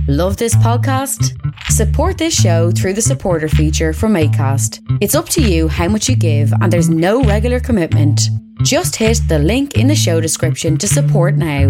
Love this podcast? Support this show through the supporter feature from ACAST. It's up to you how much you give, and there's no regular commitment. Just hit the link in the show description to support now.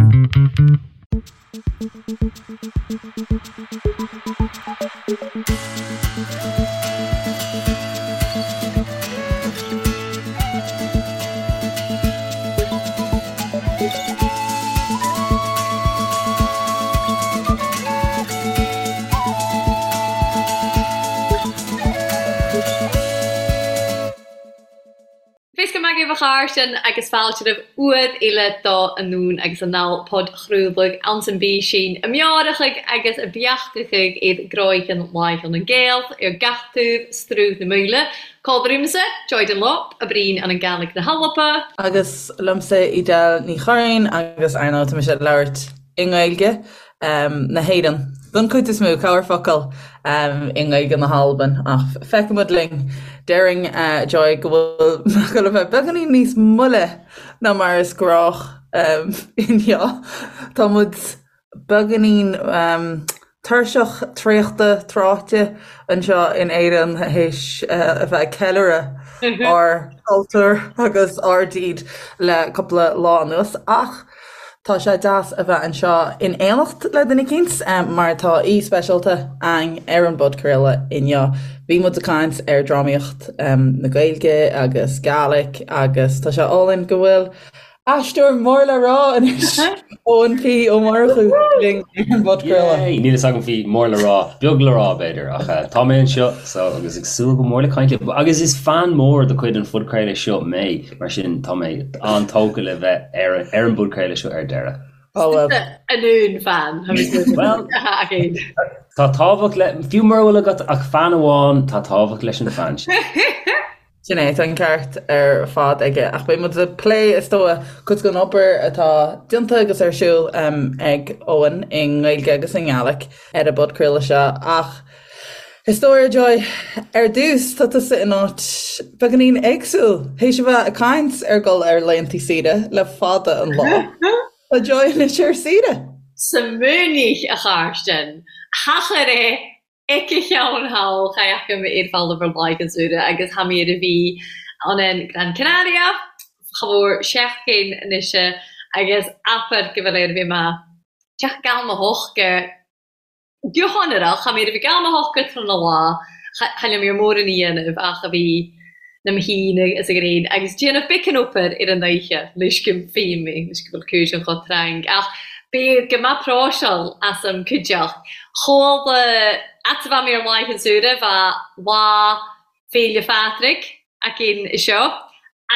Fios go maith agaibh a chairde agus fáilte roimh uair eile do Anonn agus Anall podchraoladh anns an bpísín a meárachaidh agus a beachtachaidh iad gcroícheann Laighean an Gael ar gach taobh Sruth na Maoile. Còmhairimse, Joy Dunlop, a Breen an an Gàidhlig na h-Alba. Agus liomsa Edel Ní Churraoin agus ar ndóigh tá mise ag labhairt i nGaeilge na hÉireann don chuid is mó, corrfhocal i nGaeilge na hAlban ach feicfimid linn. Déarfainn Joy go bhfuil mé ag dul a bheith beagáinín níos moille ná mar is gnách inniu. Tá muid beagáinín tuirseach, traochta, tráite anseo in Éirinn théis a bheith ag ceiliúradh ár gcultúr agus ár dtír le cúpla lá anuas. Ach tá sé deas a bheith anseo in éineacht le duine eicínt mar tá aoi speisialta againn ar an bpodchraoladh inniu. Bhí muid ag caint ar drámaíocht na Gaeilge agus Gaelic agus tá sé álainn go bhfuil Aisteoir mór le rá anois, Eoin P. Ó Murchú linn ar an bpodchraoladh. Yay! Níl fhios agam faoi mór le rá, beag le rá b'fhéidir, ach tá mé anseo so agus ag súil go mór le caint libh. Agus is fan mór de chuid an phodchraoladh seo mé, mar sin tá mé an-tógtha le bheith ar ar an bpodchraoladh seo ar deireadh. Ó bhuel. Anonn fan. Bhuel, tá tábhacht le, fiú mura bhfuil agat ach fan amháin, tá tábhacht leis an fan sin. Sin é, tá an ceart ar fad aige. Ach beidh muid ag plé, is dóigh, cuid den obair atá déanta agus ar siúl ag Eoin i nGaeilge agus i nGaelic ar an bpodchraoladh seo. Ach is dóigh, Joy, ar dtús, tá tusa in áit beagáinín éagsúil. Théis a bheith ag caint ar dhul ar laethanta saoire le fada an lá, tá Joy anois ar saoire! Smaoinigh, a Charstin, thachair é Aici cheann thall cha fhaca mé ar bhalla ar laighean saoire agus tha mi air a bhí ann in Gran Canaria cha mhór seachtain anois agus abair go bhfuil air a bhí mé teach gal mo hoc go hionrach tha mi air a bhí gal mo hoc tráthnóna lá cha liom ar mórán a dhéanamh ach a bhí na mo thín agus a ghréin agus déanamh bacon obair ar an oíche leis go bhfím leis go bhfuil cúis an chomh tarraing ach b'fhéidir go mbeadh próiseáil as an cuideacht chuala at a bheith mé ar laighean saoire bheadh lá Féile Phádraig againn seo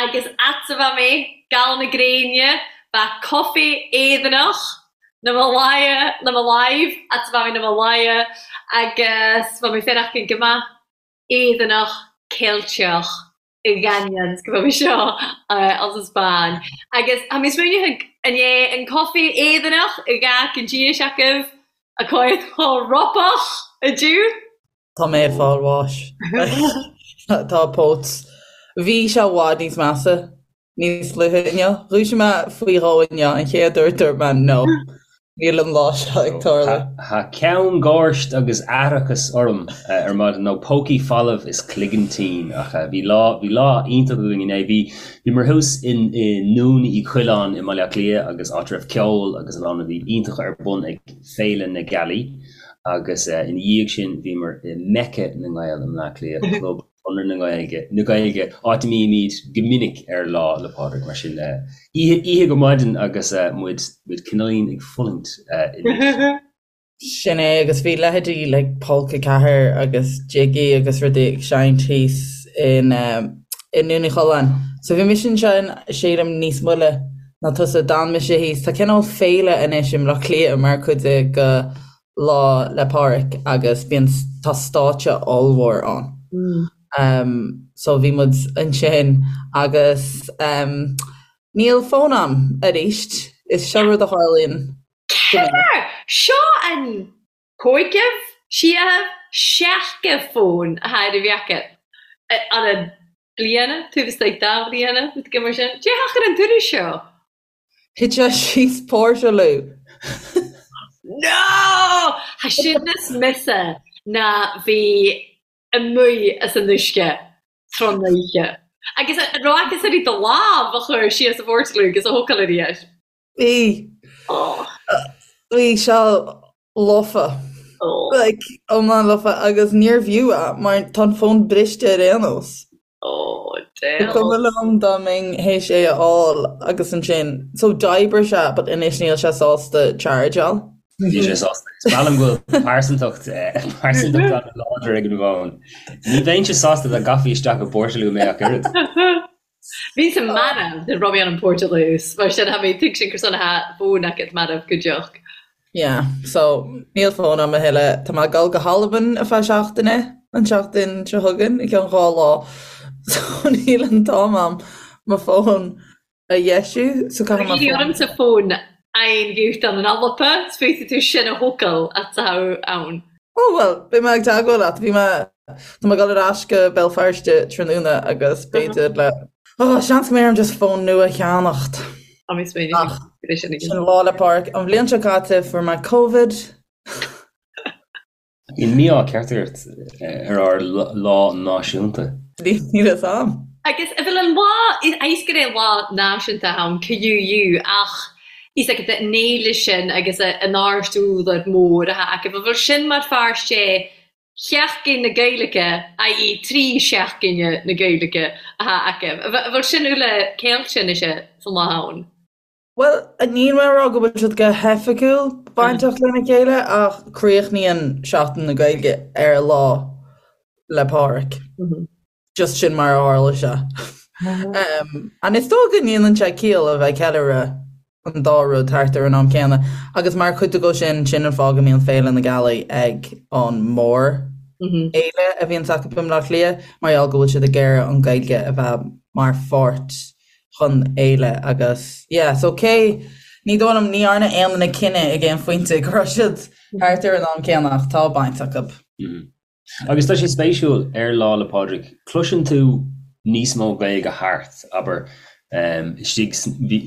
agus at a bheith mé gal na gréine bheadh coffee Éireannach na mo láimhe na mo láimh at a bheith mé na mo láimhe agus bheadh mé féin go maith Éireannach, Ceilteach, i gCañons go bhfuil mé seo as an Spáinn. Agus tá mé smaoineamh an é an coffee Éireannach i gcách an díis agaibh a chuir chomh ropach a dtiú? Tá mé ag fáil bháis. Tá póit. Bhí sé i bhfad níos measa. Níos luaithe inniu, dhúisigh mé faoi dhó inniu, an chéad uair dúirt mé no, níl an lá seo ag tarlú. Tá ceann gháirt agus aithreachas orm ar maidin, nó pócaí folamh is cloigeann tinn, ach bhí lá, bhí lá iontach againn inné. Bhí, bhíomar thuas i nDún Uí Choileáin i mBaile Átha Cliath agus áit a raibh ceol agus a lán rudaí iontacha ar bun ag Féile na Gealaí agus ina dhiaidh sin bhíomar i Mecca na nGael i mBleá Cliath, club Chonradh na Gaeilge, na Gaeilge, áit a mbímid go minic ar Lá 'le Pádraig, mar sin oíche, oíche go maidin agus muid, muid cineáilín ag fulaingt anois. Sin é, agus bhí leithéidí like Polca 4 agus Jiggy agus rudaí ag seinnt thíos in i nDún Uí Choileáin. So bhí mise ansin, sílim, níos moille ná tusa, d'fhan mise thíos. Tá cineál féile anois i mBleá Cliath mar chuid de go Lá 'le Pádraig agus bíonn, tá stáitse ollmhór ann. So bhí muid ansin agus níl fón a'm arís. Is seo rud a tharlaíonn go minic. Seo an cúigeamh, séamh, seachadh fón a tha air a bheith acu an an bliana, taobh istigh de bhliana, rud éigin mar sin. Dé thacair an turas seo. Thit sé síos póirsealú. No! Tha sin as mise ná bhí amuigh as an uisce tron oíche. Agus an raibh aca uirthi do lámh a chur síos a phortalú agus a thógáil arís? Bhí. Bhí sé lofa. Like, iomlán lofa agus níorbh fhiú é mar tá an fón briste ar aon nós. Oh, damn. Ba chuma liom dá mbeinn théis é a fháil agus ansin, so d'oibrigh sé but anois níl sé sásta chargeáil. Níl sé sásta. Is breá liom go bhfuil pearsantacht pearsantacht an-láidir ag an bhfón. Ní bheinnse sásta dá gcaithfí isteach i bportalú mé ach oiread. Bhíos-sa marbh nuair raibh mé ann an portalús, mar sin tha mi tuigsinn gur sona tha fón agat marbh go deoch. Yeah, so níl fón agam a thuilleadh. Tá mé ag dul go hAlbain ar feadh seachtaine, an tseachtain seo chugainn, i gceann 2 lá. So níl an t-am agam mo fón a dheisiú, so caithfidh mé fón. Ormsa fón aon ghiúchtan an Alba, 's féadfaidh tú sin a thógáil atá ann. Ó bhuel, beidh mé ag teagmháil leat. Bhí mé, tá mé ag dul ar ais go Béal Feirste tráthnóna agus b'fhéidir le, oh, seans go mbeidh orm just fón nua a cheannacht. Tá mé smaoineamh Ach, sin Lá 'le Pádraig. An bhliain seo caite fuair mé Covid. Bíonn mí-ádh ceart ort ar ár lá náisiúnta. Níl fhios a'm. Agus a bhfuil an lá, is gur é lá náisiúnta ann, QUU, ach is ag an fhéile sin agus an áirt údar mór atá acu. An bhfuil sin mar pháirt de Sheachtain na Gaeilge, i.e. 3 seachtaine na Gaeilge atá acu? An bhfuil sin uile ceilte anois san lá ann? Bhuel, níl mé ag rá go bhfuil siad go hoifigiúil bainteach lena chéile ach críochnaíonn Seachtain na Gaeilge ar Lá 'le Pádraig. Just sin mar a tharla sé. And is dóigh go ndéanann sé ciall a bheith ag ceiliúradh an dá rud thart ar an am céanna. Agus mar chuid de sin, sin an fáth go mbíonn Féile na Gealaí ag an mór fhéile a bhíonns acu i mBleá Cliath, mar gheall go bhfuil siad ag iarraidh an Ghaeilge a bheith mar pháirt den fhéile agus yeah so cé ní dóigh liom ní dhearna aon duine cinneadh ag aon phointe go raibh siad thart ar an am céanna ach tá baint acu. Agus tá sé spéisiúil ar Lá 'le Pádraig cloiseann tú níos mó Gaeilge thart, abair istigh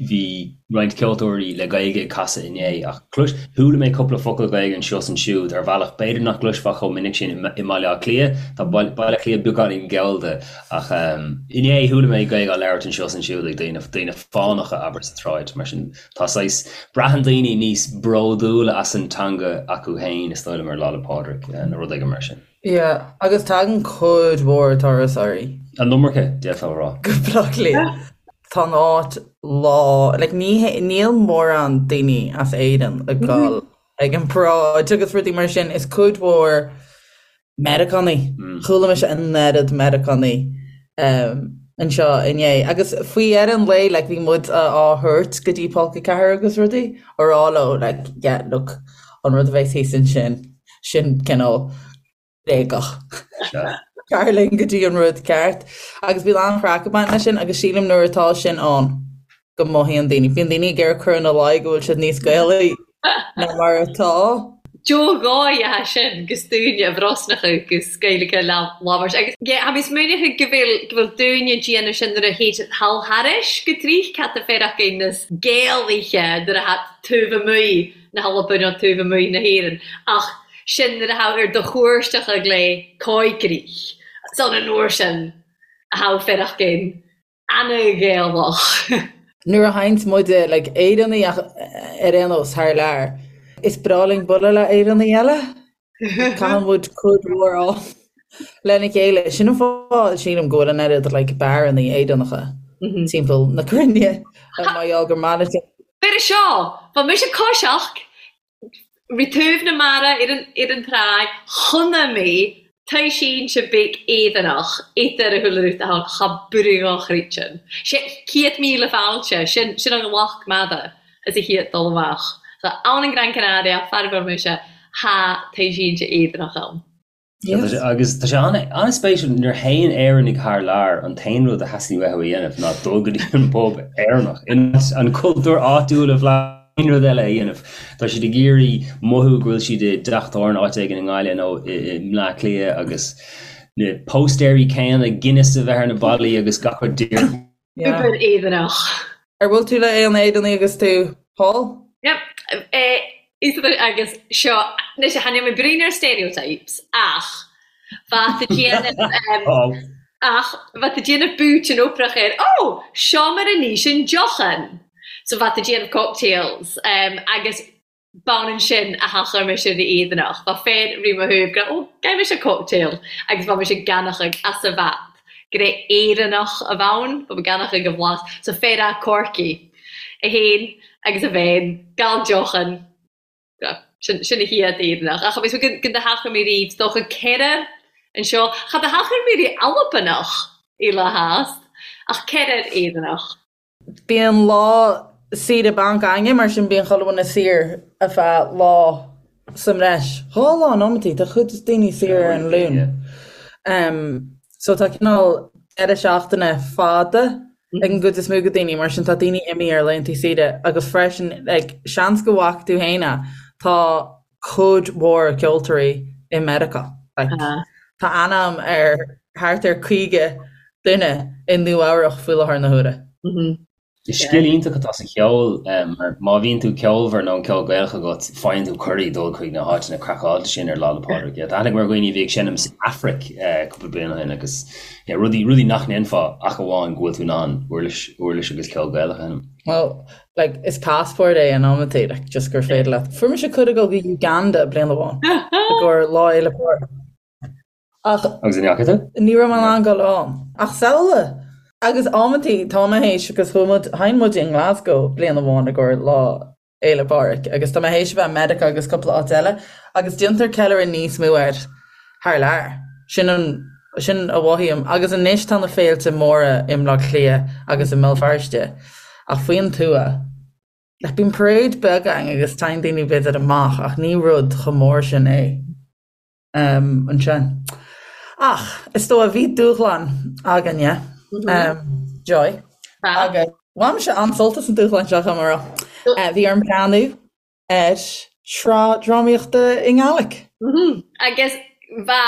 bhí roinnt ceoltóirí le Gaeilge ag casadh inné ach clois chuala mé cúpla focal Gaeilge anseo is ansiúd ar bhealach b'fhéidir nach gcloisfeá chomh minic sin i mBaile Átha Cliath, tá Baile Átha Cliath beagáinín gallda Ach inné chuala mé Gaeilge á labhairt anseo is ansiúd ag daoine, daoine fánacha, abair, sa tsráid. Mar sin, tá saghas, braitheann daoine níos bródúla as an teanga acu féin, is dóigh liom, ar Lá 'le Pádraig nó rud éigin mar sin. Yeah, agus tagann cuid mhór turasóirí. An iomarca, d'fhéadfá a rá. Go Bleá Cliath. Tá an áit lán, like ní, níl mórán daoine as Éirinn ag dul ag an bparáid agus rudaí mar sin, is cuid mhór Meiriceánaigh. Chuala mise an oiread Meiriceánaigh anseo inné. Agus faoi dheireadh an lae, like, bhí muid á thabhairt go dtí Polca 4 agus rudaí, á rá leo, like, yeah, look, an rud a bheas thíos ansin, sin cineál bréagach. Tar linn go dtí an rud ceart. Agus bíonn an-chraic ag baint leis sin agus sílim nuair atá sin ann, go mothaíonn daoine. Bíonn daoine ag iarraidh cur ina luí go bhfuil siad níos Gaelaí ná mar atá. Do dhóigh atá sin gus daoine a Bhrosnacha gus Gaeilge labhairt agus yeah, tha mi smaoineachadh go bhfuil go bhfuil daoine ag déanamh sin nuair a théid thall thairis go tríth cad tá féar acu nas Gaelaithe nuair a tha taobh amuigh na hAlban nó taobh amuigh na hÉireann ach sin nuair a tha ar do chuairteacha glé coigrích san an uair sin a tha féar acu ana-Ghaelach. Nuair a théanns muide like Éireannaigh ach ar aon nós thar lear, is breá linn bualadh le Éireannaigh eile. Caitheann muid cuid mhór am lena chéile. Sin an fáth sílim go bhfuil an oiread like beárannaí Éireannacha timpeall na cruinne mar gheall gur maith linn. B'fhéidir seo, bha mise coiseach Ri taobh na mara ar an tráigh chonnaich mi taoisínse beag Éireannach idir a shúile rút ann cha brugh chrítean. Sé 100,000 fáilte, sin sin an ghlac mada is a chéad dul amach. So ann in Gran Canaria, faraor mise, tha taoisínse Éireannach ann. Agus tá sé an-spéisiúil, nuair a théann Éireannaigh thar lear, an t-aon rud a theastaíonn uathu a dhéanamh ná dul go dtí an bpub Éireannach, in áit an cultúr áitiúil a bhlaiseadh, aon rud eile a dhéanamh. Tá siad ag iarraidh mothú go bhfuil siad i dteach tábhairne áit éigin i nGaillimh nó i mBleá Cliath agus na póstaeirí céanna, Guinness a bheith ar na ballaí agus gach rud díreach. Obair Éireannach. Ar bhuail tú le aon Éireannaigh agus tú thall? Yep. Agus seo, anois chan eil mi bruidhinn air stereotypes ach bha thu dèanamh ach bha thu dèanamh bùitean oprach air, ó, seo mar a n-ìsean deochan! So bha thu dèanamh cocktails agus b'ionann sin a thachair mise ri Éireannach. Bha fear ri mo thaobh gur, ó, ghaibh mise cocktail agus bha mise gannachadh as a bhat gur é Éireannach a bh' ann, bha mi gannachadh a bhlas. So fear a' Corcaigh é fhéin agus a bhean, gal deochan, sin sin a chéad Éireannach. Ach agus gun do thachair mi riamh, 's dòcha ceithre annseo, cha do thachair mi ri Albanach eile theas, ach ceithrear Éireannach. Bíonn lá saoire bainc againne, mar sin bíonn chuile dhuine saor ar feadh lá sa mbreis. Dhá lá in amantaí, tá cuid daoine saor ar an Luan. So tá cineál deireadh seachtaine fada ag an gcuid is mó de daoine, mar sin tá daoine imithe ar laethanta saoire agus freisin like seans go bhfaca tú fhéin é, tá cuid mhór ceoltóirí i Meiriceá. Like tá aithne agam ar thart ar 50 duine i Nua Eabhrach faoi láthair na huaire. Is scil iontach atá sa cheol mar má bhíonn tú ceolmhar nó an ceol Gaelach agat, faigheann tú cuirí dul chuig na háiteanna craiceáilte sin ar Lá 'le Pádraig. Tá aithne agam ar dhaoine a bhí ag seinm san Afraic cúpla bliain ó shin agus rudaí, rudaí nach ndéanfá ach amháin go bhfuil tú in ann uirlis, uirlis agus ceol Gaelach a sheinm. Well, like, is passport é in amantaí, like, just gur féidir leat. Fuair mise cuireadh dul go Uganda bliain amháin i gcomhair Lá Fhéile Pádraig. Ach. Agus an ndeachaigh tú? Ní raibh mé in ann dul ann. Ach samhlaigh! Agus amantaí, tá mé théis, agus chuaigh muid, sheinn muid i nGlasgow bliain amháin i gcomhair Lá Fhéile Pádraig, agus tá mé théis a bheith i Meiriceá agus cúpla áit eile, agus déantar ceiliúradh níos mó air thar lear. Sin an, sin a mhothaím. Agus anois tá na féilte móra i mBleá Cliath agus i mBéal Feirste, ach faoin tuath, like, bíonn parade beag againn agus téann daoine b'fhéidir amach, ach ní rud chomh mór sin é. ansin. Ach is dóigh bhí dúshlán againne, Joy, agus bhain mise an-sult as an dúshlán seo, chomh maith. Bhí orm breathnú ar shraith drámaíochta i nGàidhlig. Agus bha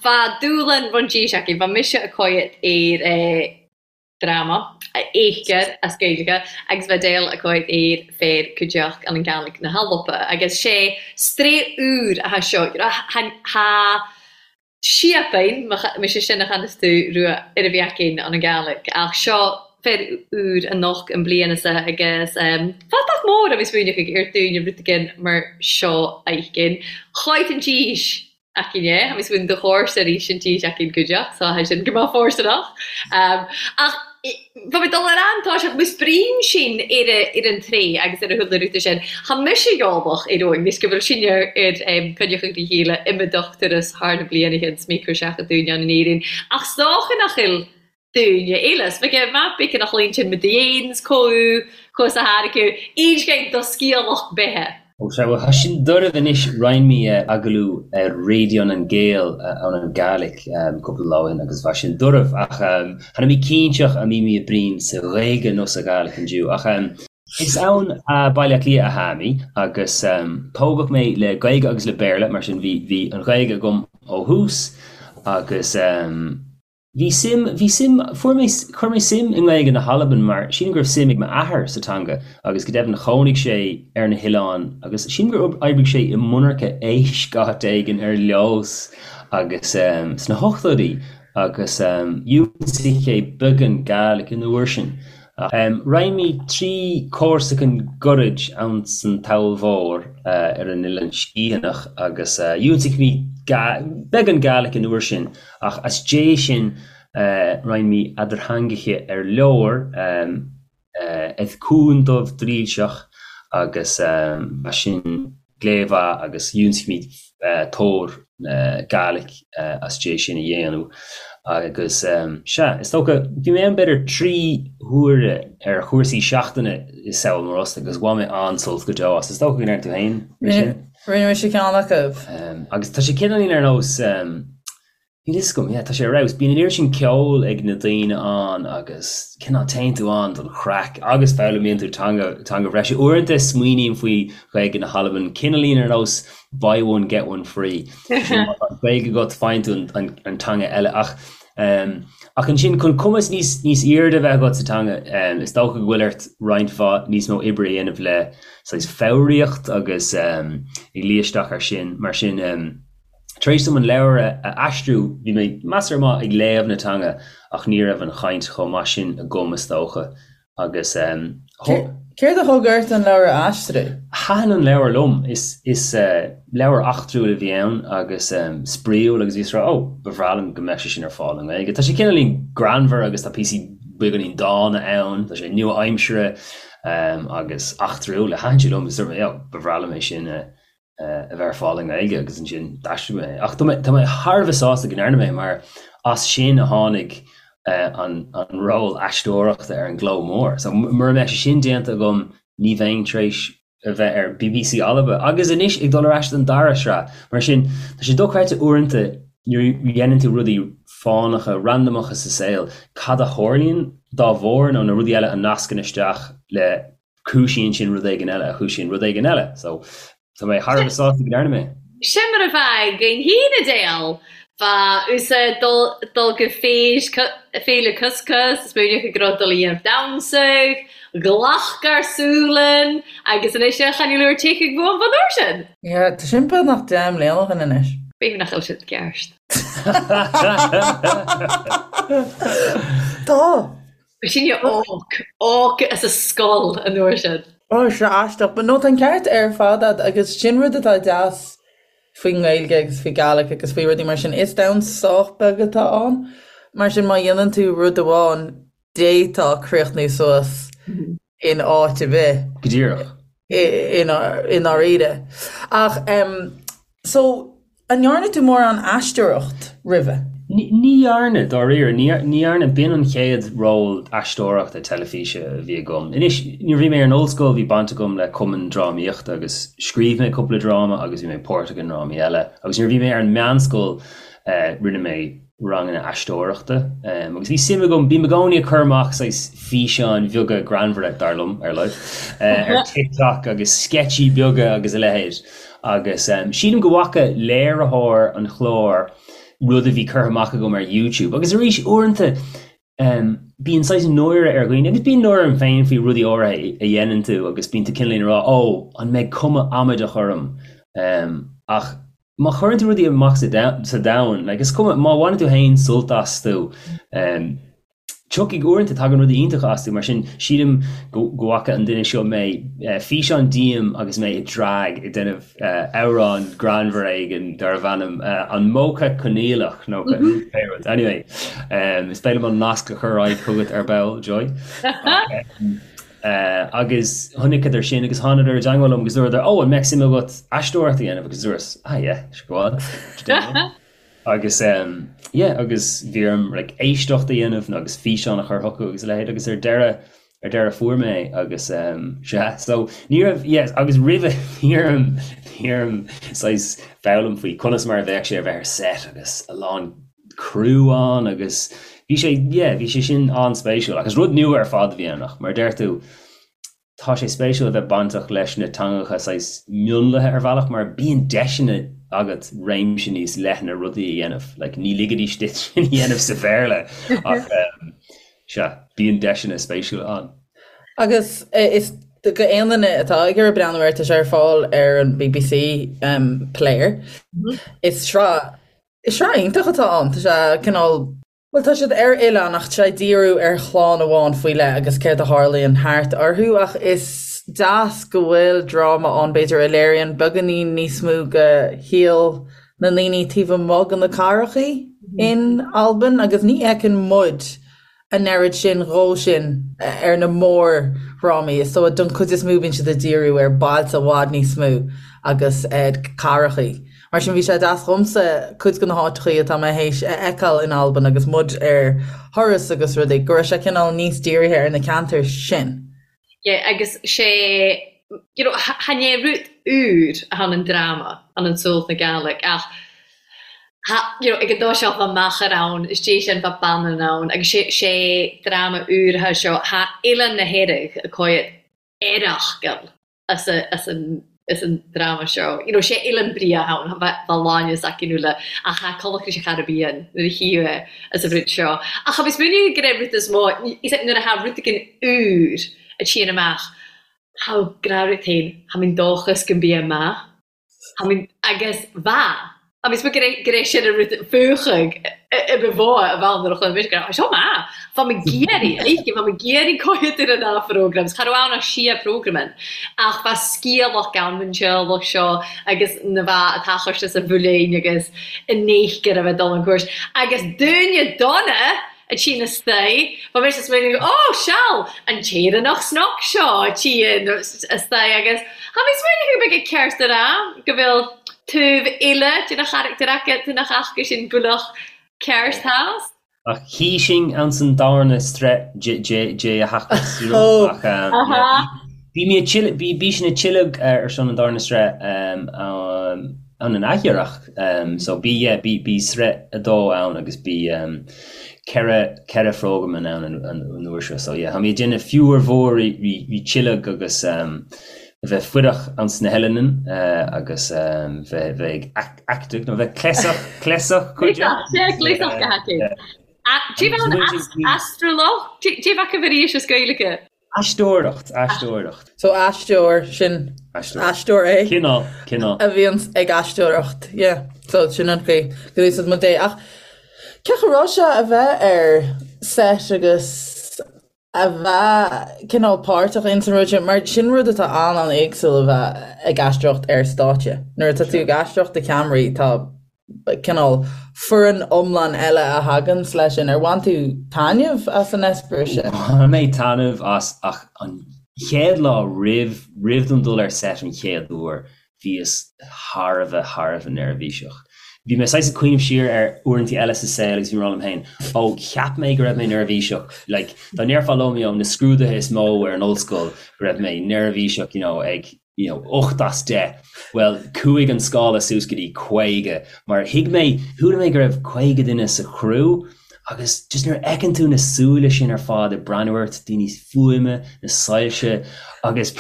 bha dùbhlan ròin dithis againn, bha mise a' coimhead air dráma a fheictear as Gaeilge agus bha Edel a' coimhead air fear cuideachd ann an Gàidhlig na h-Alba agus 'sé strae úr a tha seo tha síopainn mise sin a channas tú rua ar a bheith againn ann an Gàidhlig ach seo fear úr annocht an bliana sa agus fathach mór a bhí smaoineach ag ar dúinne rud éigin mar seo a fheicinn. Choimh an dís againn é, tha mi 'smaoineadh do chòrsa a-rìs an dìs againn cuideachd, so tha sin gu math fòirsteanach. Ach bha mi dol air an toiseach, mus bruidhinn sinn air ar an traigh agus ar a chuile rud sin, tha mise eòlach air eoin, nis gu bheil sinne air coinneachadh ri cheile iomdach turas thar na bliadhnachain 's mi cur 'seach a dúinn ann in Éirinn. Ach 's dòcha nach eil daoine eile. 's bheadh maith bacon a chlaon sin mid dhéans comh chomh sa tháirgeadh aon do sciathlach beithe. Ó sea, bhuel, tá sin doirbh anois. Rinn mé agallamh ar Raidió nan Gàidheal ann an Gàidhlig cúpla lá ó shin agus bha sin doirbh ach tha mi cinnteach a' mbí mi a' bruidhinn sa Ghaeilge nó sa Ghàidhlig indiu ach is ann a Baile Átha Cliath a tha mi agus tógadh mé le Gaeilge agus le Béarla mar sin bhí bhí an Ghaeilge agam ó thús agus Bhí suim, bhí suim, fuair mé, chuir mé suim i nGaeilge na hAlban mar sílim go raibh suim ag m'athair sa teanga agus go deimhin chónaigh sé ar na hoileáin agus sílim gur oibrigh sé i monarcha éisc áit éigin ar Leòdhas agus sna hochtóidí agus d'ionsaigh sé beagán Gàidhlig an uair sin. Rinn mé 3 cúrsachain ghoirid ann san Sabhal Mhòr ar an Oileán Sgitheanach agus d'ionsaigh mé beagán Gàidhlig an uair sin ach as dé sin rinn mé eadartheangacha ar leor eth Cùn Dubh Drìlseach agus as sin glé mhaith agus d'ionsaigh mé tóir Gàidhlig as dé sin a dhéanamh agus sea, is dócha, bhí mé ann b'fhéidir 3 huaire ar chúrsaí seachtaine i Sabhal Mòr Ostaig agus bhain mé an-sult go deo as. Is dócha go ndearna tú féin é sin? Rinne mise ceann acu. Agus tá sé cineáilín ar nós Níl fhios agam, yeah, tá sé ar fheabhas. Bíonn an oiread sin ceoil ag na daoine ann agus cineál téann tú ann don chraic agus foghlaimíonn tú teanga, teanga bhreise. Uaireanta smaoiním faoi Ghaeilge na hAlban, cineáilín ar nós buy one get one free. Má tá Gaeilge agat faigheann tú an, an, an teanga eile ach. Ach ansin, chun cumas níos níos airde a bheith agat sa teanga, is dócha go bhfuil ort roinnt mhaith níos mó oibre a dhéanamh le saghas foghraíocht agus ag luí isteach air sin. Mar sin, tar éis dom an leabhar a aistriú, bhí mé measartha maith ag léamh na teanga ach ní raibh an chaint chomh maith sin agam, is dócha. Agus Céard a thug ort an leabhar a aistriú? Thaitin an leabhar liom. Is leabhar eachtrúil a bhí ann agus spraíúil agus bhíos ag rá, 'Ó, ba bhreá liom go mbeadh sé sin ar fáil i nGaeilge'. Tá sé cineáilín greannmhar agus tá píosaí beagáinín dána ann, tá sé nua-aimseartha agus eachtrúil. Thaitin sé liom agus dúirt mé, 'Ó, ba bhreá liom é sin a a bheith ar fáil i nGaeilge agus ansin d'aistrigh mé é. Ach tá mé tá mé thar a bheith sásta go ndearna mé mar as sin a tháinig an an ról aisteoireachta ar an gCló Mór. So mura mbeadh sé sin déanta agam ní bheinn tar éis a bheith ar BBC Alba agus anois ag dul ar ais don dara sraith. Mar sin tá sé dochreidte uaireanta nuair a dhéanann tú rudaí fánacha, randamacha sa saol, cad a tharlaíonn dá bharr nó na rudaí eile a nascann isteach le Cúisíonn sin rud éigin eile a chúisíonn rud éigin eile. So, tá mé thar a bheith sásta go ndearna mé. Sin mar a bheadh againn féin Edel. Bha thusa dol gu féile Cuscus, is smaoineach go raibh dul a dhéanamh damhsach, ghlacadh Sualann agus anois a chan fhuil úr teach ag bhuan fan uair sin. Yeah, tá sin beagnach 10 mbliana ó shin anois. B'fhéidir nach bhfuil siad ceart. Tá! Sinne óg, óg as a scoil an uair sin. Ó, sea, aisteach. But no, tá an ceart ar fad a'd agus sin rud atá deas faoin nGaeilge agus faoi Gaelic agus faoi rudaí mar sin. Is domhan sách beag atá ann. Mar sin má dhéanann tú rud amháin, d'fhéadfá críochnú suas in áit ar bith. Go díreach. I ndáiríre. Ach, so, An ndearna tú mórán aisteoireacht roimhe? Ní dhearna, dáiríre. Ní dhearna. B'in an chéad ról aisteoireachta teilifíse a bhí agam. Anois, nuair a bhí mé ar an ollscoil bhí baint agam le cumann drámaíochta agus scríobh mé cúpla dráma agus bhí mé páirteach i ndrámaí eile. Agus nuair a bhí mé ar an meánscoil rinne mé ranganna aisteoireachta agus bhí suim agam, bím i gcónaí ag cur amach saghas físeáin bheaga greannmhara, dar liom, ar a laghad, ar TikTok agus sceitsí beaga agus a leithéid. Agus sílim go bhfaca léiritheoir an chláir rud a bhí curtha amach agam ar YouTube. Agus arís, uaireanta bíonn saghas náire ar dhaoine, agus bíonn náire orm féin faoi rudaí áirithe a dhéanann tú agus bíonn tú cineáilín ag rá, 'Ó, an mbeidh cuma amaideach orm? Ach má chuireann tú rudaí amach sa domhan, like, is cuma, má bhaineann tú féin sult astu, Tiocfaidh uaireanta, tagann rudaí iontacha astu, mar sin sílim go bhfaca an duine seo mé, físeán díom agus mé i drag ag déanamh amhrán greannmhar éigin darbh ainm 'An Mócha Coinníollach' nó pé rud. Anyway, is féidir liom an nasc a chur ar aghaidh chugat ar ball, Joy. Agus chonaiceadar sin agus thánadar i dteangmháil liom agus dúradar, 'Ó, an mbeadh suim agat aisteoireacht a dhéanamh? Agus dúras, 'Ah yeah, sure go on. Agus yeah agus bhí orm like éisteacht a dhéanamh agus físeán a chur chucu agus a leithéid agus ar deireadh ar deireadh fuair mé é agus sea so ní raibh yeah agus roimhe bhí orm bhí orm saghas foghlaim faoi conas mar a bheadh sé a bheith ar set agus a lán crew ann agus bhí sé yeah bhí sé sin an-spéisiúil agus rud nua ar fad a bhí ann ach mar a deir tú Tá sé spéisiúil a bheith bainteach leis na teangacha saghas mionlaithe ar bhealach mar bíonn deiseanna agat réimse níos leithne rudaí a dhéanamh. Like, ní ligfidís duit sin a dhéanamh sa Bhéarla ach sea, bíonn deiseanna spéisiúla ann. Agus is do aon duine atá ag iarraidh breathnú air, tá sé ar fáil ar an BBC Player. Is sraith, is sraith iontach atá ann. Tá sé cineál. Bhuel, tá siad ar oileán ach tá sé ag díriú ar chlann amháin faoi leith agus céard a tharlaíonn thart orthu ach is deas go bhfuil dráma ann b'fhéidir a léiríonn beagáinín níos mó de shaol na ndaoine taobh amuigh de na cathrachaí in Albain agus ní fheiceann muid an oiread sin dhó sin ar na mórdhrámaí. Is dóigh don chuid is mó bíonn siad ag díriú ar bailte i bhfad níos mó agus cathrachaí. Mar sin bhí sé deas dhomsa cuid de na háiteachaí atá mé théis a fheiceáil in Albain agus muid ar thuras agus rudaí, go raibh sé cineál níos dírithe ar na ceantair sin. Yeah, agus sé, you know, chan e rud úr a tha an dráma, an An Suailc na Gàidhlig, ach tha, you know, ag an dtoiseach bha machair ann, is dè sin bha bannan ann, agus sé, sé dráma úr a tha seo, tha Oileán na h-Earraig a' coimhead earrachgal. as an. Is an dráma seo, you know, sé Oileán Bria ann, bheadh láine s'aici nó le, ach tha Connacht sa Chairibbean nuair a chíodh é as an rud seo. Ach tha mi smaoineamh gur é rud is mó, is é nuair a tha rud éigin úr a tchíonn amach, tha gnáthrud féin, tha minn dóchas go mbí é maith. Tha minn, agus bha. Tha mi smaoineamh gur é, gur é sin an rud fuachadh i ba mhó a bheadh nuair a chluin mise go raibh seo maith. Bha mi ag iarraidh, oidhche, bha mi ag iarraidh coimhéad ar an dá phrógram, cha raibh ann ach sia prógraman, ach bha sgialach ann an teaghlach seo agus na bha a tachairt as an bhuiléin agus an néithgir a bheith dul an cúirt. Agus dúine dona a tchí na staigh, bha mise ag smaoineamh, ó, seal, an tÉireannach snoc seo a tchí na staigh agus tha mi smaoineamh go mbeidh ceart a rá go bhfuil taobh eile de na charachtair acu, de na haca sin builleach ceart theas. Ach chí sinn anns an darna sraith de a theachtas, you know, ach yeah, bhí mé ag bhí bhí sin ag tuilleadh ar son an darna sraith ann an athiarrach so bhí yeah bhí bhí sraith a dó ann agus bhí 4 cheithre phrógram ann an uair seo so yeah tá mé ag déanamh fiú ar mhór ri tuilleadh agus a bheith fuireach anns na hEileanan agus bheith bheith ag acting nó bheith cleasach cleasach cuid de. Cleasach go haicéad. Cé bheith an astralach? Cé bheith acu arís as Gaeilge? Aisteoireacht, aisteoireacht. So aisteoir, sin aisteoir é. Cineál, cineál. A bhíonns ag aisteoireacht, yeah. So sin an chaoi go úsáid muid é. Ach cén chaoi a raibh sé a bheith ar set agus a bheith cineál páirteach ins an rud sin, mar sin rud atá an-an-éagsúil a bheith ag aisteoireacht ar stáitse. Nuair atá tú ag aisteoireacht do cheamaraí tá cineál foireann iomlán eile a thaganns leis sin. Ar bhain tú taitneamh as an eispéireas sin? Bhain mé taitneamh as ach an chéad lá roimh roimh dom dul ar set an chéad uair bhíos thar a bheith thar a bheith neirbhíseach. Bhí mé saghas ag cuimhneamh siar ar uaireanta eile sa saol agus bhí mé ag rá liom féin, ó cheap mé go raibh mé neirbhíseach like dá ndéarfá liom you know na scrúduithe is mó ar an ollscoil go raibh mé neirbhíseach you know ag you know, 8 as 10, bhuel, chuaigh an scála suas go dtí 50, mar thuig mé, chuala mé go raibh 50 duine sa chriú agus just nuair a fheiceann tú na súile sin ar fad ag breathnú ort, daoine fuaime, na soilse agus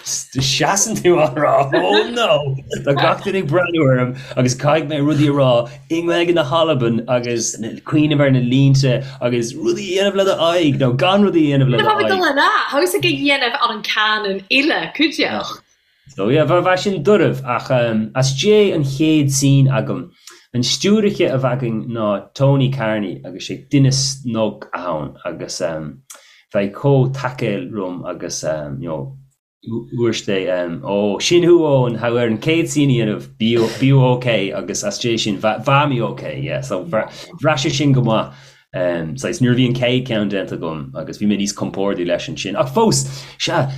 seasann tú á rá, oh no, tá gach duine ag breathnú orm agus caithfidh mé rudaí a rá i nGaeilge na hAlban agus cuimhneamh ar na línte agus rudaí a dhéanamh le do aghaidh nó gan rudaí a dhéanamh le do aghaidh. Dul ar a, thos ag a dhéanamh ar an cannon uile, cuideachta. So yeah, bha sin duirbh ach as dé an chéad scene agam, an stiúiriche a bha againn ná Tony Carney agus sé duine snug ann agus bha é chomh tacail rium agus you know, Dúirt sé, Ó, sin thú Eoin, tha thu air an chéad scene a dhéanamh, bí ok agus as dé sin, bha mi ok, yeah, so bhraith sé sin go maith. Saghas, nuair a bhí an chéad ceann déanta agam agus bhí mé níos compórdaí leis ansin. Ach fós, sea,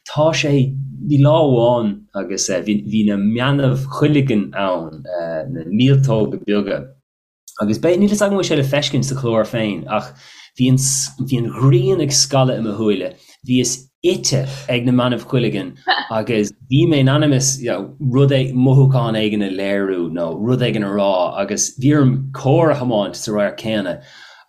tá sé, bhí lá amháin agus bhí na meanbh chuileagain ann, na míoltóga beaga, Agus beidh, níl fhios agam an bhfuil sé le feiscint sa chlár féin, ach bhí an, bhí an ghrian ag scaladh i mo shúile, bhíos ite ag na meanbh cuileagain agus bhí mé in ainm is, you know, rud é, mothúchán éigin a léiriú nó rud éigin a rá agus bhí orm carr a thiomáint sa radharc céanna